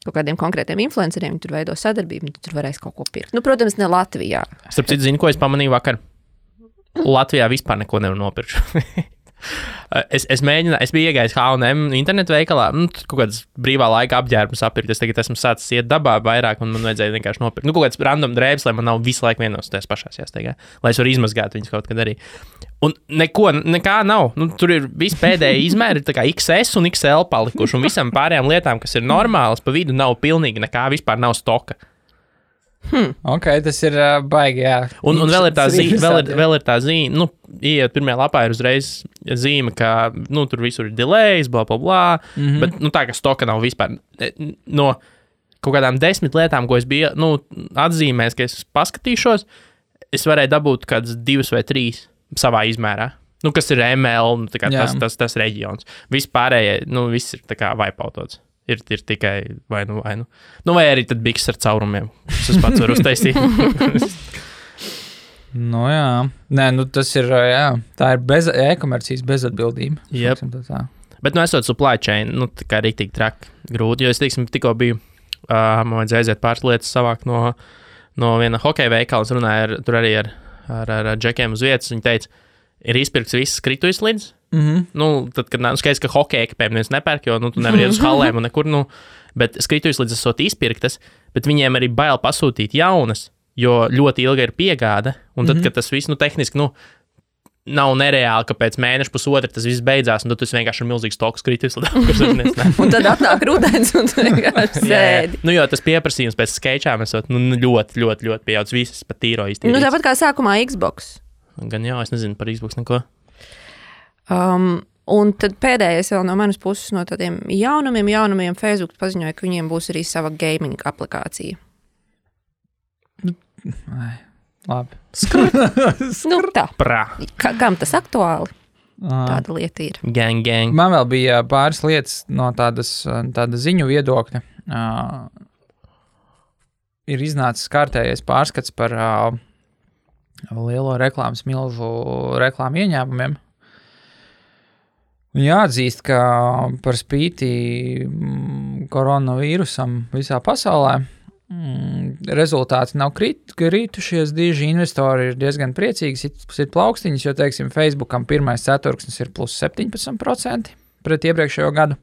Kaut kādiem konkrētiem influenceriem, tur veido sadarbību, un tur varēs kaut ko pirkt. Protams, ne Latvijā. Starp citu, zinu, ko es pamanīju vakar. Latvijā vispār neko nevar nopirkt. Es biju iegājis H&M internetu veikalā, kaut kādas brīvā laika apģērbus apirkt. Es tagad esmu sācis iet dabā vairāk, un man vajadzēja vienkārši nopirkt. Kaut kāds random drēbes, lai man nav visu laiku vienos tajās pašās jāsteigā, lai es varu izmazgāt viņus kaut kad arī. Un nekā nav. Tur ir visi pēdējie izmēri, tā kā XS un XL palikuši, un visam pārējām lietām, kas ir normālas, pa vidu nav pilnīgi nekā, vispār nav stoka. Ok, tas ir baigi, jā. Un vēl ir tā zīme, ieiet pirmajā lapā ir uzreiz zīme, ka, tur visur ir delays, bla, bla, bla, bet, tā, ka stoka nav vispār. No kaut kādām 10 lietām, ko es biju, atzīmējis, ka es paskatīšos, es varēju dabūt kādas 2 vai 3 savā izmērā. Kas ir ML, tas reģions. Viss pārējie, viss ir tā kā vaipautots. Ir tikai vai nu. Vai arī tad biks ar caurumiem, kas es pats varu uztaisīt. Jā. Nē, tas ir, tā ir e-komercijas bezatbildība. Yep. Bet, esot supply chain, tā kā rīktīgi traki grūti, jo es, tikko biju, man vajadzēja aiziet pāris lietas savākt no viena hokeja veikala, es runāju tur arī ar džekiem uz vietas, viņi teica, ir izpirkts viss skritujas tad, kad skaidrs, ka hokeja ekipēm neviens nepērk, jo, tu nevar iet uz halēm un nekur, bet skritujas līdz esot izpirktas, bet viņiem arī bail pasūtīt jaunas, jo ļoti ilga ir piegāde, un tad, kad tas viss, tehniski, nav nereāli, ka pēc mēneša pusotra tas viss beidzās, un tad tu vienkārši ir milzīgs stoks kritis. Un tad atnāk rudens, un tu vienkārši sēdi. Jo tas pieprasījums pēc skečām esot, ļoti, ļoti, ļoti pieaudzis, visas pat tīro iztīrīts. Tāpat kā sākumā Xbox. Gan jā, es nezinu par Xbox neko. Un tad pēdējais vēl no manas puses no tādiem jaunumiem Facebook paziņoja, ka viņiem būs arī sava gaming aplikācija. Labi. Tā. Prā. Kam tas aktuāli? Tāda lieta ir. Gang. Man vēl bija pāris lietas no tāda ziņu viedokļa. Ir iznācis kārtējais pārskats par lielo reklāmas milzu reklāmu ieņēmumiem. Jāatzīst, ka par spīti koronavīrusam visā pasaulē rezultāti nav kritušies, dīži investori ir diezgan priecīgi, sit plaukstiņas, jo, teiksim, Facebookam pirmais ceturksnis ir plus 17% pret iepriekšējo gadu.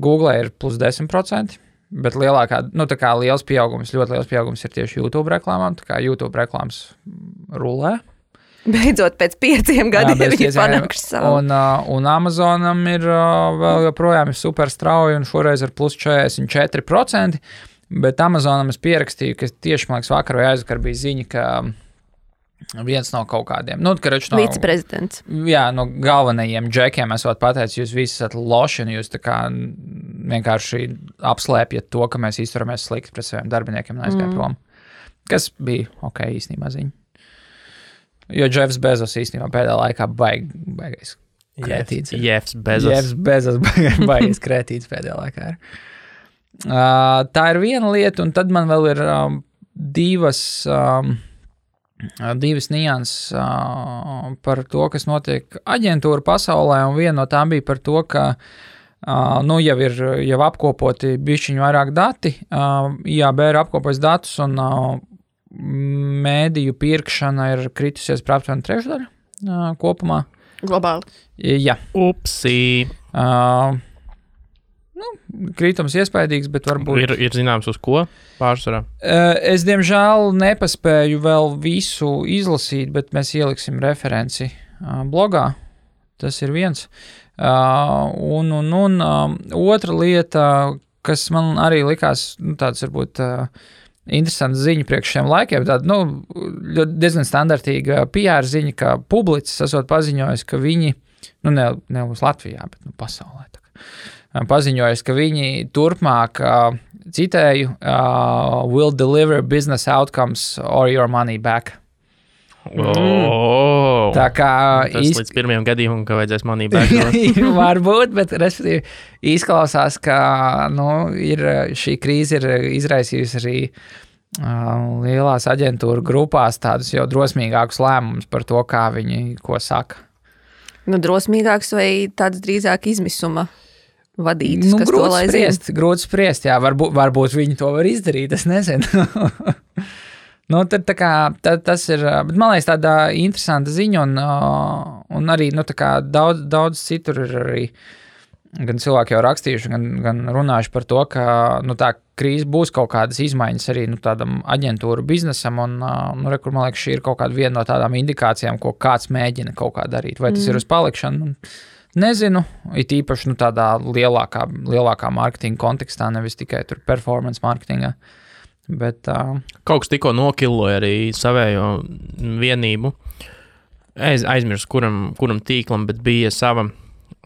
Google ir plus 10%, bet lielākā, tā kā liels pieaugums, ļoti liels pieaugums ir tieši YouTube reklāmām, tā kā YouTube reklāmas rulē. Beidzot, pēc 5 gadiem viņi panākuši savu. Un Amazonam ir vēl joprojām ir super strauji un šoreiz ar plus 44%, bet Amazonam es pierakstīju, ka tieši, man liekas, vakar vai aizvakar bija ziņa, ka viens no kaut kādiem, viceprezidents. Jā, no galvenajiem džekiem esot pateicis, jūs visi esat loši un jūs tā kā vienkārši apslēpjat to, ka mēs izturamies slikti pret saviem darbiniekiem un aizgāja prom. Kas bija ok īstenībā ziņa. Jo Jeffs Bezos īstenībā pēdējā laikā baigais krētīts. Jeffs Bezos baigais krētīts pēdējā laikā. Tā ir viena lieta, un tad man vēl ir divas nianses par to, kas notiek aģentūra pasaulē, un viena no tām bija par to, ka jau apkopoti bišķiņu vairāk dati, IAB ir apkopojis datus, un mēdīju pirkšana ir kritusies par aptuveni 1/3 kopumā. Globāli. Jā. Upsī. Krītums iespaidīgs, bet varbūt... Ir zināms uz ko pārsvarā? Es, diemžēl, nepaspēju vēl visu izlasīt, bet mēs ieliksim referenci blogā. Tas ir viens. Un otra lieta, kas man arī likās, tāds varbūt... interesanta ziņa priekš šiem laikiem, tāda, diezgan standartīga PR ziņa, ka Publicis esot paziņojis, ka viņi, ne uz Latvijā, bet pasaulē, paziņojusi, ka viņi turpmāk, citēju, will deliver business outcomes or your money back. Tā kā tas līdz pirmajam gadījumam, ka vajadzēs money back. Varbūt, bet respektīvi izklausās, ka šī krīze ir izraisījusi arī lielās aģentūru grupās tādus jau drosmīgākus lēmumus par to, kā viņi ko saka. Drosmīgāks vai tāds drīzāk izmisuma vadītas, kas to lai zina? Grūti spriest, jā, varbūt viņi to var izdarīt, es nezinu. Tad tas ir, bet man liekas tāda interesanta ziņa un arī, tā kā daudz citur ir arī gan cilvēki jau rakstījuši, gan runājuši par to, ka, tā krīze būs kaut kādas izmaiņas arī, tādam aģentūru biznesam un, kur, man liekas, šī ir kaut kāda viena no tādām indikācijām, ko kāds mēģina kaut kā darīt. Vai tas ir uz palikšanu? Nezinu, it īpaši, tādā lielākā mārketinga kontekstā, nevis tikai tur performance mārketingā. Bet, kaut kas tikko nokilloja arī savējo vienību. Es aizmirsu, kuram tīklam, bet bija sava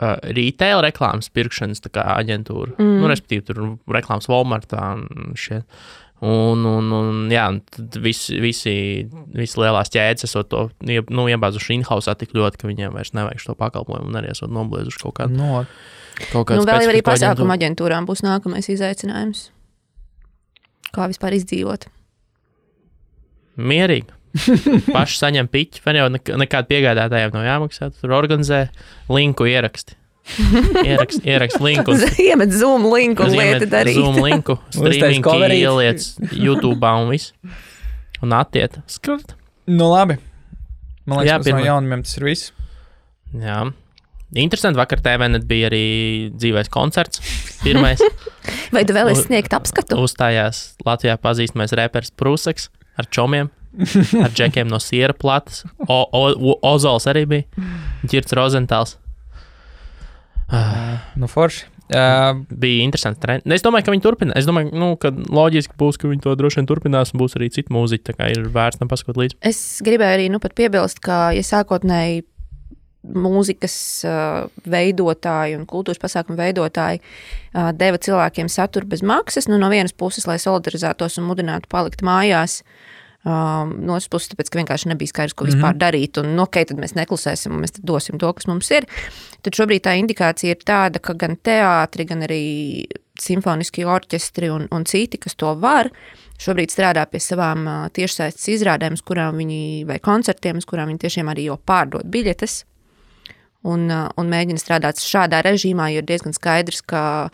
retail reklāmas pirkšanas tā kā aģentūra. Respektīvi, tur reklāmas Walmartā un šie. Un jā, tad visi lielās ķēdes esot to iebāzuši in-housā tik ļoti, ka viņiem vairs nevajag šo pakalpojumu un arī esot nobliezuši kaut kādu. Vēl arī pasākuma aģentūrām būs nākamais izaicinājums. Kā vispār izdzīvot? Mierīgi. Paši saņem piķi, vai jau nekādu piegādātājiem nav jāmaksā. Tur organizē linku ieraksti. Ieraksti linku. Iemet Zoom linku un lieti darīt. Zoom linku, streamingi ieliec YouTube'ā un viss. Un attiet. Skart. Labi. Man liekas, no jaunumiem tas ir viss. Jā. Interesanti, vakar TVNet bija arī dzīvais koncerts, pirmais. Vai tu vēl esi sniegt apskatu? Uzstājās Latvijā pazīstamais reperis Prūseks ar čomiem, ar džekiem no siera platas. Ozols arī bija, Ģirts Rozentāls. Forši. Bija interesanti trendi. Es domāju, ka viņi turpinās. Es domāju, ka loģiski būs, ka viņi to droši vien turpinās un būs arī cita mūziķa, tā kā ir vērts tam paskot līdzi. Es gribēju arī pat piebilst, ka sākotnēji mūzikas veidotāji un kultūras pasākumu veidotāji deva cilvēkiem saturu bez maksas, no vienas puses, lai solidarizētos un mudinātu palikt mājās, no otras puses, tāpēc, ka vienkārši nebija skaidrs, ko vispār darīt, un tad mēs neklusēsim, un mēs tad dosim to, kas mums ir. Tad šobrīd tā indikācija ir tāda, ka gan teātri, gan arī simfoniskie orķestri un citi, kas to var, šobrīd strādā pie savām tiešsaistes izrādēm, vai koncertiem, uz kurām viņi tiešām arī jau pārdod biļetes. Un mēģina strādāt šādā režīmā, jo ir diezgan skaidrs, ka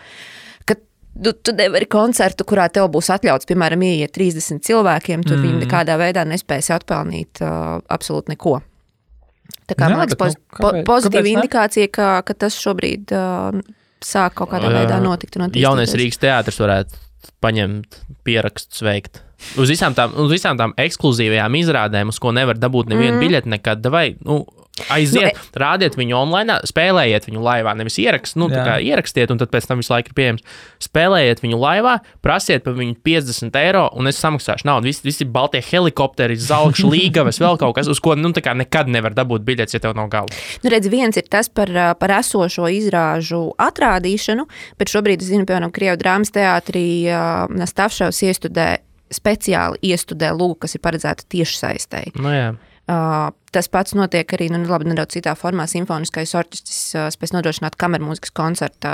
tu nevari koncertu, kurā tev būs atļauts, piemēram, ieiet 30 cilvēkiem, tur viņi nekādā veidā nespēs atpelnīt absolūti neko. Tā kā, man liekas, pozitīva indikācija, ka tas šobrīd sāk kaut kādā veidā notikt. Jaunais Rīgas teātris varētu paņemt pierakstus veikt. Uz visām tām ekskluzīvajām izrādēm, uz ko nevar dabūt nevienu biļeti nekad, vai, aiziet, rādiet viņu online, spēlējiet viņu laivā, nevis tā kā ierakstiet, un tad pēc tam visu laiku ir pieejams. Spēlējiet viņu laivā, prasiet par viņu 50 eiro, un es samaksāšu naudu. Visi baltie helikopteri, zelkšu līgavas, vēl kaut kas, uz ko tā kā nekad nevar dabūt biļetes, ja tev nav galva. Redz, viens ir tas par esošo izrāžu atrādīšanu, bet šobrīd, es zinu, piemēram, Krievu drāmas teātrī Nastavšavs speciāli iestudē lūgu, kas ir paredzēta tiešsaistei. Jā. Tas pats notiek arī nedaudz citā formā. Simfoniskais orķestris spēs nodrošināt kamermūzikas koncertā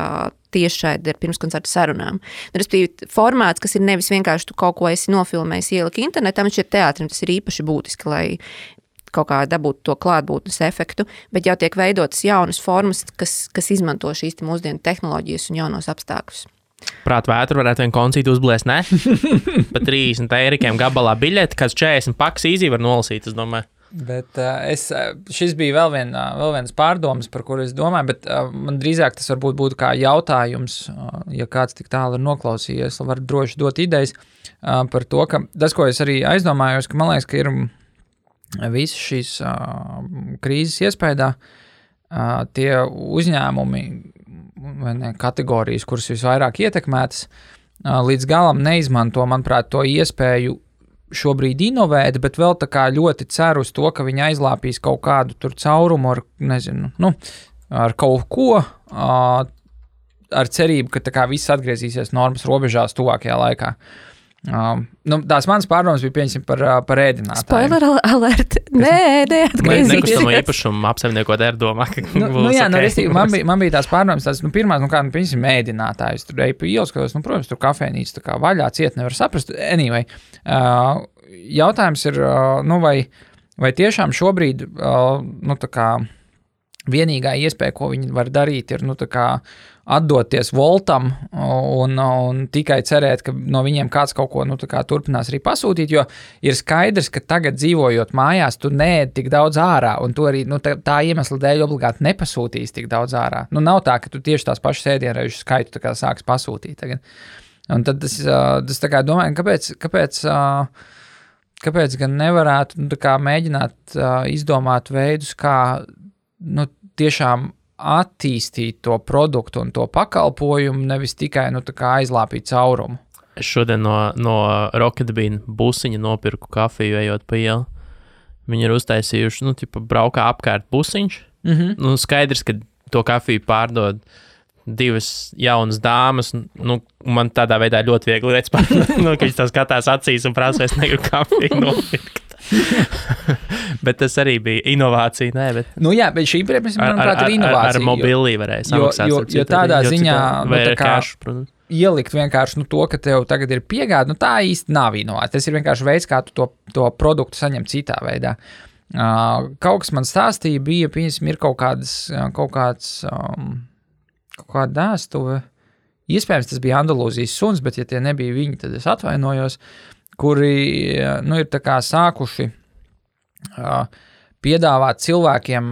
tiešraidi ar pirmskoncerta sarunām. Respektīvi, formāts, kas ir nevis vienkārši tu kaut ko esi nofilmējis, ieliki internetā, bet šeit teātrim tas ir īpaši būtiski, lai kaut kā dabūtu to klātbūtnes efektu, bet jau tiek veidotas jaunas formas, kas izmanto šīs mūsdienu tehnoloģijas un jaunos apstākļus. Prāt vētru varētu vienu koncītu uzblēst, ne? Pa 30 eirikiem gabalā biļeti, kāds 40 paks īzī var nolasīt, es domāju. Bet šis bija vēl viens pārdomas, par kuru es domāju, bet man drīzāk tas varbūt būtu kā jautājums, ja kāds tik tālu ir noklausījies, var droši dot idejas par to, ka tas, ko es arī aizdomājos, ka man liekas, ka ir visas šīs krīzes iespējā tie uzņēmumi vai ne, kategorijas, kuras visvairāk ietekmētas, līdz galam neizmanto, manuprāt, to iespēju šobrīd inovēt, bet vēl tā kā ļoti ceru uz to, ka viņi aizlāpīs kaut kādu tur caurumu ar, nezinu, ar kaut ko, ar cerību, ka tā kā viss atgriezīsies normas robežās tuvākajā laikā. Tās manas pārdomas bija pieņemsim par ēdinātājiem. Spoiler alert. Nē, neatgriezīsies. Nekustamo īpašumu apsaimniekot domā, ka man bija tās pārdomas, pirmās, pieņemsim ēdinātājs, tur eju pa ielas, protams, tur kafejnīca tā kā vaļā, ciet nevar saprast. Anyway, jautājums ir, vai tiešām šobrīd, tā kā vienīgā iespēja, ko viņi var darīt, ir, tā kā atdoties Voltam un tikai cerēt, ka no viņiem kāds kaut ko, tā kā turpinās arī pasūtīt, jo ir skaidrs, ka tagad dzīvojot mājās, tu neēd tik daudz ārā, un tu arī, tā iemesla dēļ obligāti nepasūtīs tik daudz ārā. Nav tā, ka tu tieši tās pašas ēdienreižu skaitu tā kā sāks pasūtīt tagad. Un tad tas tā kā domāju, kāpēc gan nevarētu tā kā mēģināt izdomāt veidus, kā tiešām attīstīt to produktu un to pakalpojumu, nevis tikai tā kā aizlāpīt caurumu. Es šodien no Rocket Bean busiņa nopirku kafiju, ejot pa ielu. Viņi ir uztaisījuši, braukā apkārt busiņš. Skaidrs, ka to kafiju pārdod divas jaunas dāmas, man tādā veidā ļoti viegli redz, ka viņš tā skatās acīs un prasa, es negribu kafiju nopirkt. Bet tas arī bija inovācija, ne? Bet bet šī, manuprāt, ir inovācija. Ar mobilī varēja samaksāt. Jo tādā ziņā, cash, protams. Ielikt vienkārši to, ka tev tagad ir piegāde, tā īsti nav inovācija. Tas ir vienkārši veids, kā tu to produktu saņem citā veidā. Kaut kas man stāstīja, bija, ir kaut kāda dēstuve. Iespējams, tas bija Andalūzijas suns, bet ja tie nebija viņi, tad es atvainojos, kuri, ir tā kā sākuši piedāvāt cilvēkiem,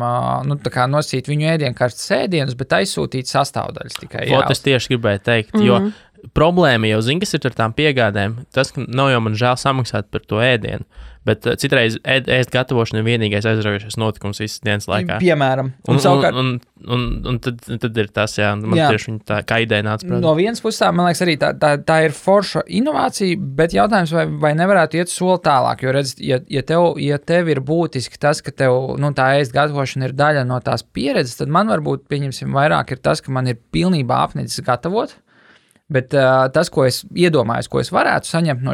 tā kā nosīt viņu ēdienkartes ēdienus, bet aizsūtīt sastāvdaļas tikai. Es tieši gribēju teikt, jo problēma jau zina, kas ir ar tām piegādēm. Tas, ka nav jau man žēl samaksāt par to ēdienu, bet citreiz ēst gatavošana ir vienīgais aizraujošais notikums visas dienas laikā. Piemēram. Un tad ir tas, man tieši viņa tā kā ideja nāca prāt. No vienas puses, man liekas, arī tā ir forša inovācija, bet jautājums, vai nevarētu iet soli tālāk, jo redz, ja tev ir būtiski tas, ka tev, tā ēst gatavošana ir daļa no tās pieredzes, tad man varbūt, pieņemsim, vairāk ir tas, ka man ir pilnībā apnicis gatavot. Bet tas, ko es iedomājos, ko es varētu saņemt no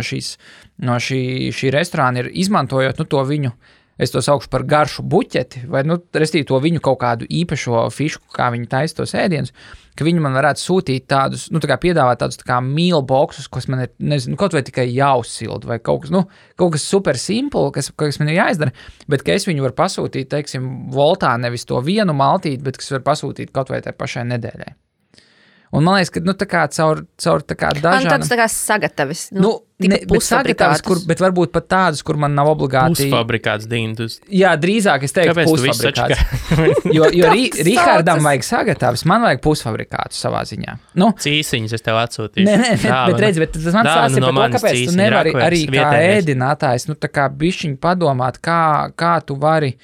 šī restorāna, ir izmantojot to viņu, es to saukšu par garšu buķeti, vai restīvi to viņu kaut kādu īpašo fišu, kā viņi taisa tos ēdienus, ka viņi man varētu sūtīt tādus, tā kā piedāvāt tādus tā kā meal boxus, kas man ir, nezinu, kaut vai tikai jāuzsilda, vai kaut kas super simple, kas man ir jāizdara, bet ka es viņu varu pasūtīt, teiksim, Voltā nevis to vienu maltīti, bet kas var pasūtīt kaut vai tai pašai nedēļai. Un man liekas, ka tā kā caur tā kā dažādām... Tāds tā kā sagatavis. Bet sagatavs, bet varbūt pat tādas, kur man nav obligāti... Pusfabrikāts, Dīna. Jā, drīzāk es teiktu pusfabrikāts. Jo Rihardam vajag sagatavs, man vajag pusfabrikātus savā ziņā. Cīsiņas es tev atsūtīšu. Nē, bet tas man stāsta par to, kāpēc tu nevari arī kā ēdinātājs, tā kā bišķiņ padomāt, kā tu vari...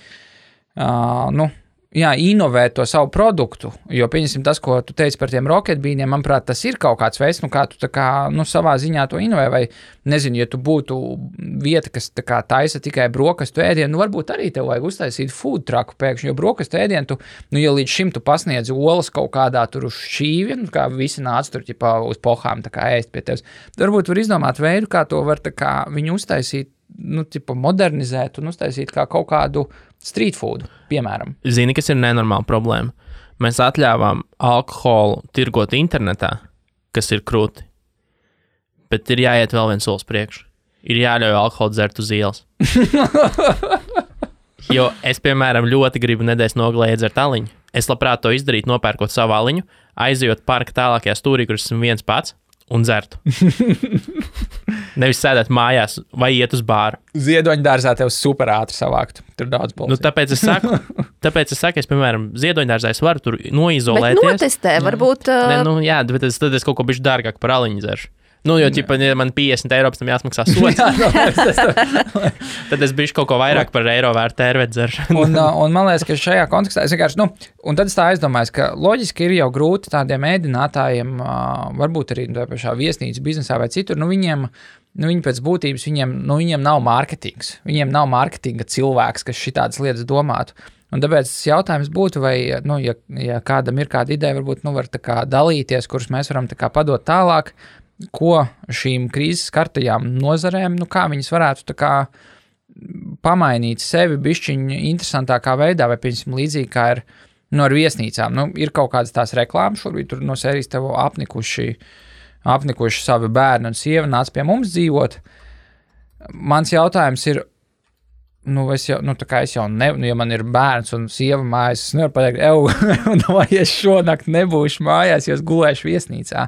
inovēt to savu produktu, jo, pieņemsim, tas, ko tu teici par tiem Rocket Beaniem, manuprāt, tas ir kaut kāds veids, kā tu tā kā, savā ziņā to inovē, vai, nezinu, ja tu būtu vieta, kas tā kā taisa tikai brokastu ēdienu, varbūt arī tev vajag uztaisīt food trucku pēkšņi, jo brokastu ēdienu tu, ja līdz šim tu pasniedz olas kaut kādā tur uz šķīvi, kā visi nāc tur, ķipā, uz pohām, tā kā ēst pie tevis, varbūt var izdomāt veidu, kā to var tā kā viņu uztaisīt, modernizēt un uztaisīt kā kaut kādu street food, piemēram. Zini, kas ir nenormāla problēma? Mēs atļāvām alkoholu tirgot internetā, kas ir krūti, bet ir jāiet vēl viens solis priekš. Ir jāļauj alkoholu dzert uz ielas. Jo es, piemēram, ļoti gribu nedēļas nogalē iedzert aliņu. Es labprāt to izdarītu, nopērkot savu aliņu, aizejot parka tālākajā stūrī, kur esmu viens pats, un dzertu. Nevis sēdēt mājās vai iet uz bāru. Ziedoņdārzā tev super ātri savākt. Tur daudz balsī. Tāpēc es saku, es, piemēram, Ziedoņdārzā es varu tur noizolēties. Bet notestē, varbūt... bet tad es kaut ko bišķi dārgāk par aliņu dzeršu. Jo, ja man 50 eiro pēc tam jāsmaksā sots, tad es bišķi kaut ko vairāk par eiro vērtu tērvēt dzeršanu. Un man liekas, ka šajā kontekstā es vienkārši, un tad es tā aizdomājos, ka loģiski ir jau grūti tādiem ēdinātājiem, varbūt arī tā pašā viesnīcu biznesā vai citur, viņi pēc būtības, viņiem nav mārketings. Viņiem nav mārketinga cilvēks, kas šitādas lietas domātu. Un tāpēc jautājums būtu, vai, ja kādam ir kāda ideja, varbūt, var tā kā dalīties, kurus mēs varam tā kā padot tālāk, ko šīm krīzes skartajām nozarēm, kā viņas varētu tā kā pamainīt sevi bišķiņu interesantākā veidā, vai, piemēram, līdzīgi kā ir ar viesnīcām. Ir kaut kādas tās reklāmas, šobrīd tur no sērijas tev apnikuši savi bērni un sieva nāc pie mums dzīvot. Mans jautājums ir, es jau ja man ir bērns un sieva mājas, es nevaru pateikt, vai es šonakt nebūšu mājās, jo es gulēšu viesnīcā.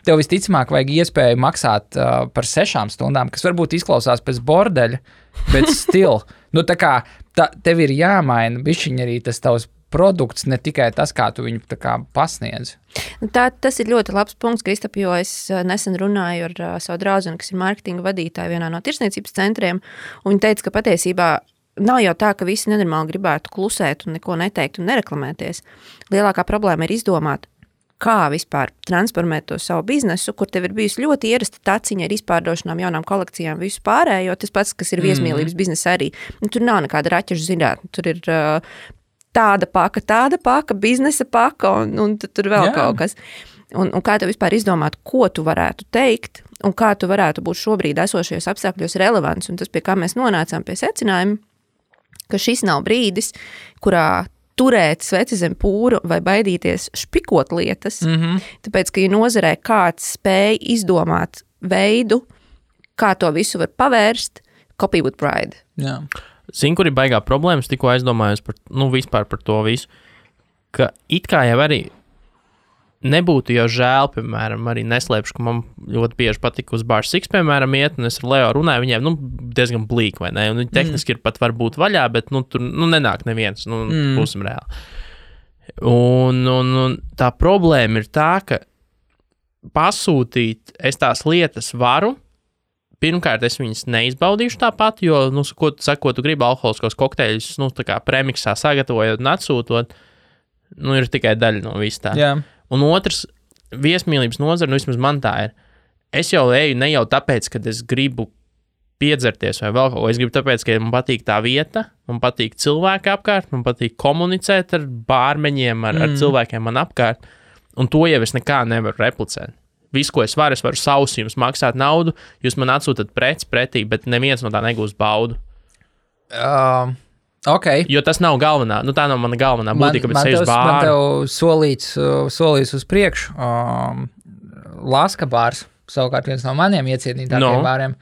Tev visticamāk vajag iespēju maksāt par 6 stundām, kas varbūt izklausās pēc bordeļa, bet still. Tev ir jāmaina bišķiņ arī tas tavs produkts, ne tikai tas, kā tu viņu tā kā pasniedz. Tas ir ļoti labs punkts, Kristap, jo es nesen runāju ar savu draudzeni, kas ir mārketinga vadītāja vienā no tirsniecības centriem, un viņa teica, ka patiesībā nav jau tā, ka visi nenormāli gribētu klusēt un neko neteikt un nereklamēties. Lielākā problēma ir izdomāt, kā vispār transformēt to savu biznesu, kur tev ir bijusi ļoti ierasta taciņa ar izpārdošanām, jaunām kolekcijām, visu pārējo, tas pats, kas ir viesmīlības biznesa arī. Tur nav nekāda raķešu zinātne, tur ir tāda paka, biznesa paka un tur vēl kaut kas. Un kā tev vispār izdomāt, ko tu varētu teikt un kā tu varētu būt šobrīd esošajos apstākļos relevants. Un tas, pie kā mēs nonācām pie secinājuma, ka šis nav brīdis, kurā turēt sveci zem pūru vai baidīties špikot lietas, tāpēc, ka ja nozarē kāds spēj izdomāt veidu, kā to visu var pavērst, copy with pride. Jā. Zini, kur ir baigā problēmas, tikko aizdomājos vispār par to visu, ka it kā jau arī nebūtu jau žēl, piemēram, arī neslēpšu, ka man ļoti bieži patika uz Bar 6, piemēram, iet, un es ar Leo runāju, viņiem, diezgan blīk, vai ne, un viņi tehniski ir pat varbūt vaļā, bet, tur, nenāk neviens, būsim reāli. Un tā problēma ir tā, ka pasūtīt es tās lietas varu. Pirmkārt, es viņas neizbaudīšu tāpat, jo, ko tu gribi alkoholiskos kokteļus, tā kā premiksā sagatavojot un atsūtot, ir tikai daļa no viss tā. Jā. Un otrs, viesmīlības nozara, vismaz man tā ir, es jau eju ne jau tāpēc, ka es gribu piedzerties vai vēl kaut ko, es gribu tāpēc, ka man patīk tā vieta, man patīk cilvēki apkārt, man patīk komunicēt ar bārmeņiem, ar cilvēkiem man apkārt, un to jau es nekā nevaru replicēt. Visu, ko es varu savus jums maksāt naudu, jūs man atsūtat preci pretī, bet neviens no tā negūs baudu. Okay. Jo tas nav galvenā, tā nav mana galvenā būtība, ka es eju uz bāru. Man tev solīts uz priekšu. Laska bārs, savukārt viens no maniem iecienītākiem bāriem.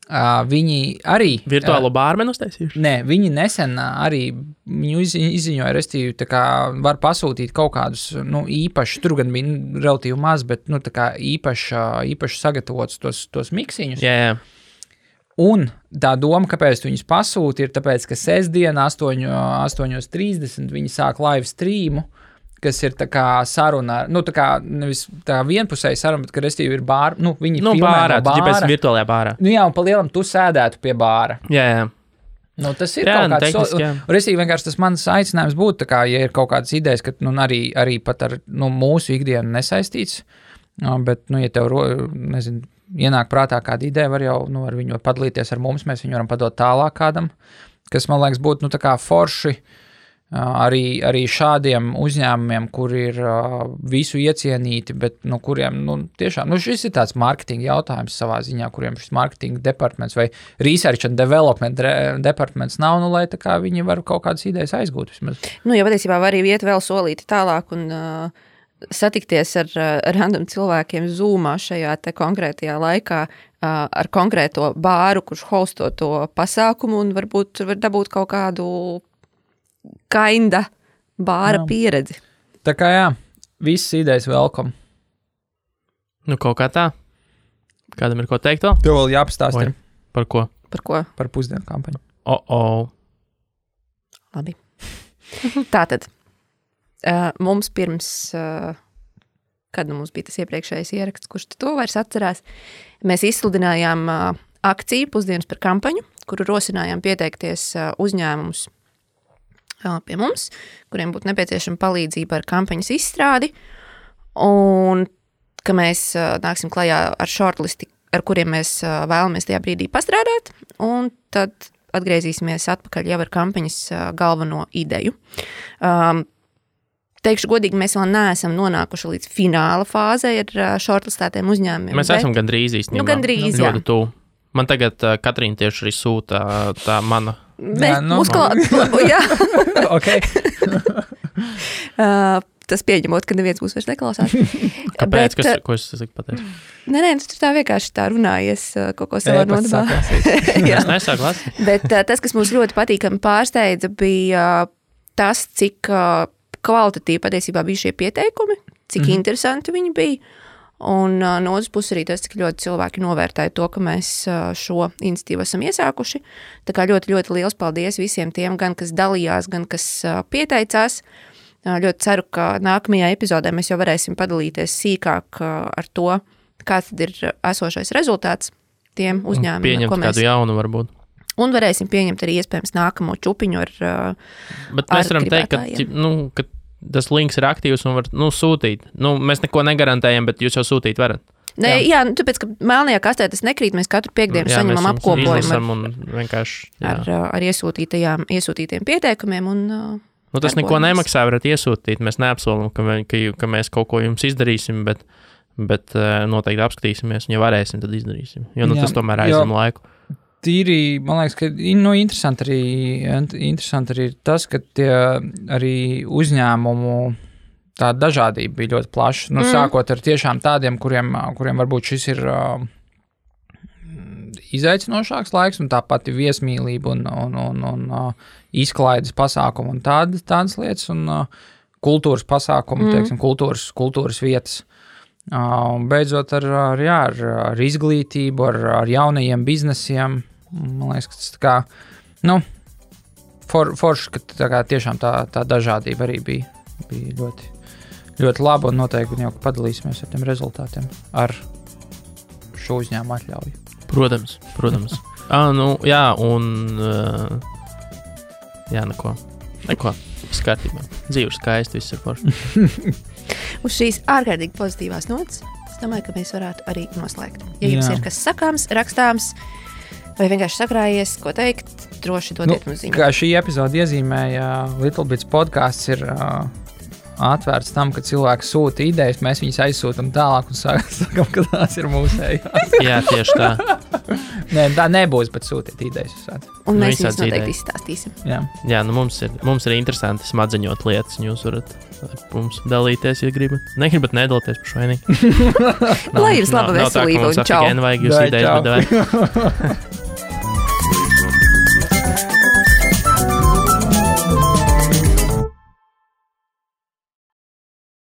Viņi arī... Virtuālo bārmenu uztaisījuši? Nē, viņi nesen arī izziņoja, restīvi, tā kā var pasūtīt kaut kādus, īpaši, tur gan bija relatīvi maz, bet, tā kā īpaši sagatavots tos miksiņus. Jā. Un tā doma, kāpēc tu viņus pasūti, ir tāpēc, ka sestdien 8:30 viņi sāk live streamu, kas ir tā kā saruna, tā kā nevis tā vienpusēja saruna, bet, ka restīvi ir bāra, viņi filmē bārā, no bāra. Tu virtuālajā bārā. Jā, un pa lielam tu sēdētu pie bāra. Jā. Tas ir kaut kāds, restīvi vienkārši tas mans aicinājums būtu, tā kā, ja ir kaut kādas idejas, ka, arī pat ar, mūsu ikdienu nesaistīts, bet, ja tev, ienāk prātā kāda ideja, var jau, ar viņu padalīties ar mums, mēs viņu varam padot tālāk kādam, kas, man liekas, būtu, tā kā forši, arī šādiem uzņēmumiem, kur ir visu iecienīti, bet kuriem tiešām, šis ir tāds marketinga jautājums savā ziņā, kuriem šis marketinga departments vai research and development departments nav, lai tā kā viņi var kaut kādas idejas aizgūt vismaz. Ja patiesībā var arī iet vēl solīti tālāk un satikties ar random cilvēkiem Zoomā šajā te konkrētajā laikā ar konkrēto bāru, kurš hosto to pasākumu un varbūt var dabūt kaut kādu kinda bāra pieredzi. Tā kā jā, visas idejas welcome. Kaut kā tā. Kādam ir ko teikt vēl? Tev vēl jāpastāst. Par ko? Par ko? Par pusdienu kampaņu. Labi. Tātad, mums pirms, kad mums bija tas iepriekšējais ieraksts, kurš to vairs atcerās, mēs izsludinājām akciju pusdienas par kampaņu, kuru rosinājām pieteikties uzņēmumus pie mums, kuriem būtu nepieciešama palīdzība ar kampaņas izstrādi, un ka mēs nāksim klajā ar shortlisti, ar kuriem mēs vēlamies tajā brīdī pastrādāt, un tad atgriezīsimies atpakaļ jau ar kampaņas galveno ideju. Teikšu godīgi, mēs vēl neesam nonākuši līdz fināla fāzei ar shortlistētiem uzņēmumiem. Mēs esam gandrīz īstenībā. Gandrīz, jā. Ļoti tuvu. Man tagad Katrīna tieši arī sūta tā mana. Jā. Okay. Tas pieņemot, ka neviens būs vairs neklausās. Kāpēc? Ko es pateicu? Nē, tu tā vienkārši tā runājies kaut ko savā nodabā. Es nesāku lasīt. Bet tas, kas mums ļoti patīkami pārsteidza, bija tas, cik kvalitatīvi patiesībā bija šie pieteikumi, cik interesanti viņi bija. Un no otras puses arī tas, cik ļoti cilvēki novērtēja to, ka mēs šo iniciatīvu esam iesākuši. Tā kā ļoti, ļoti liels paldies visiem tiem, gan kas dalījās, gan kas pieteicās. Ļoti ceru, ka nākamajā epizodē mēs jau varēsim padalīties sīkāk ar to, kāds tad ir esošais rezultāts tiem uzņēmumiem. Pieņemt kādu jaunu varbūt. Un varēsim pieņemt arī iespējams nākamo čupiņu ar Bet mēs varam teikt, ka tas links ir aktīvs un var sūtīt. Mēs neko negarantējam, bet jūs jau sūtīt varat. Nē, jā, tāpēc, ka melnajā kastē tas nekrīt, mēs katru piekdienu saņemam apkopojumu ar iesūtītiem pieteikumiem un tas neko nemaksā, varat iesūtīt. Mēs neapsolam, ka mēs kaut ko jums izdarīsim, bet noteikti apskatīsimies, un ja varēsim, tad izdarīsim. Jo tas tomēr aizņem laiku. Tīri, man liekas, ka interesanti arī tas, ka tie arī uzņēmumu tā dažādība bija ļoti plaša. Sākot ar tiešām tādiem, kuriem varbūt šis ir izaicinošāks laiks, un tāpat ir viesmīlība un izklaides pasākumu un tādas lietas, un kultūras pasākumu, teiksim, kultūras vietas. Beidzot ar izglītību, ar jaunajiem biznesiem. Man liekas, ka tas tā kā, forši, ka tā kā tiešām tā dažādība arī bija ļoti, ļoti laba, un noteikti jau padalīsimies ar tiem rezultātiem ar šo uzņēmumu atļauju. Protams. Jā, un neko. Skatībā. Dzīve skaisti, viss ir forši. Uz šīs ārkārtīgi pozitīvās notas, es domāju, ka mēs varētu arī noslēgt. Ja jums ir kas sakāms, rakstāms, vai vienkārši sakrājies, ko teikt, droši dodiet mums ziņu. Kā šī epizode iezīmēja, Little Bits podcasts ir atvērts tam, ka cilvēki sūta idejas, mēs viņus aizsūtam tālāk un sakam, ka tās ir mūsējās. Jā, tieši tā. Nē, tā nebūs, bet sūtiet idejas. Un mēs viņus noteikti izstāstīsim. Jā, mums ir interesanti smadzeņot lietas, un jūs varat ar mums dalīties, ja gribat. Negribat nedalīties par švainīgi. Lai jums laba veselība un čau. Vajag jūs idejas, bet vajag.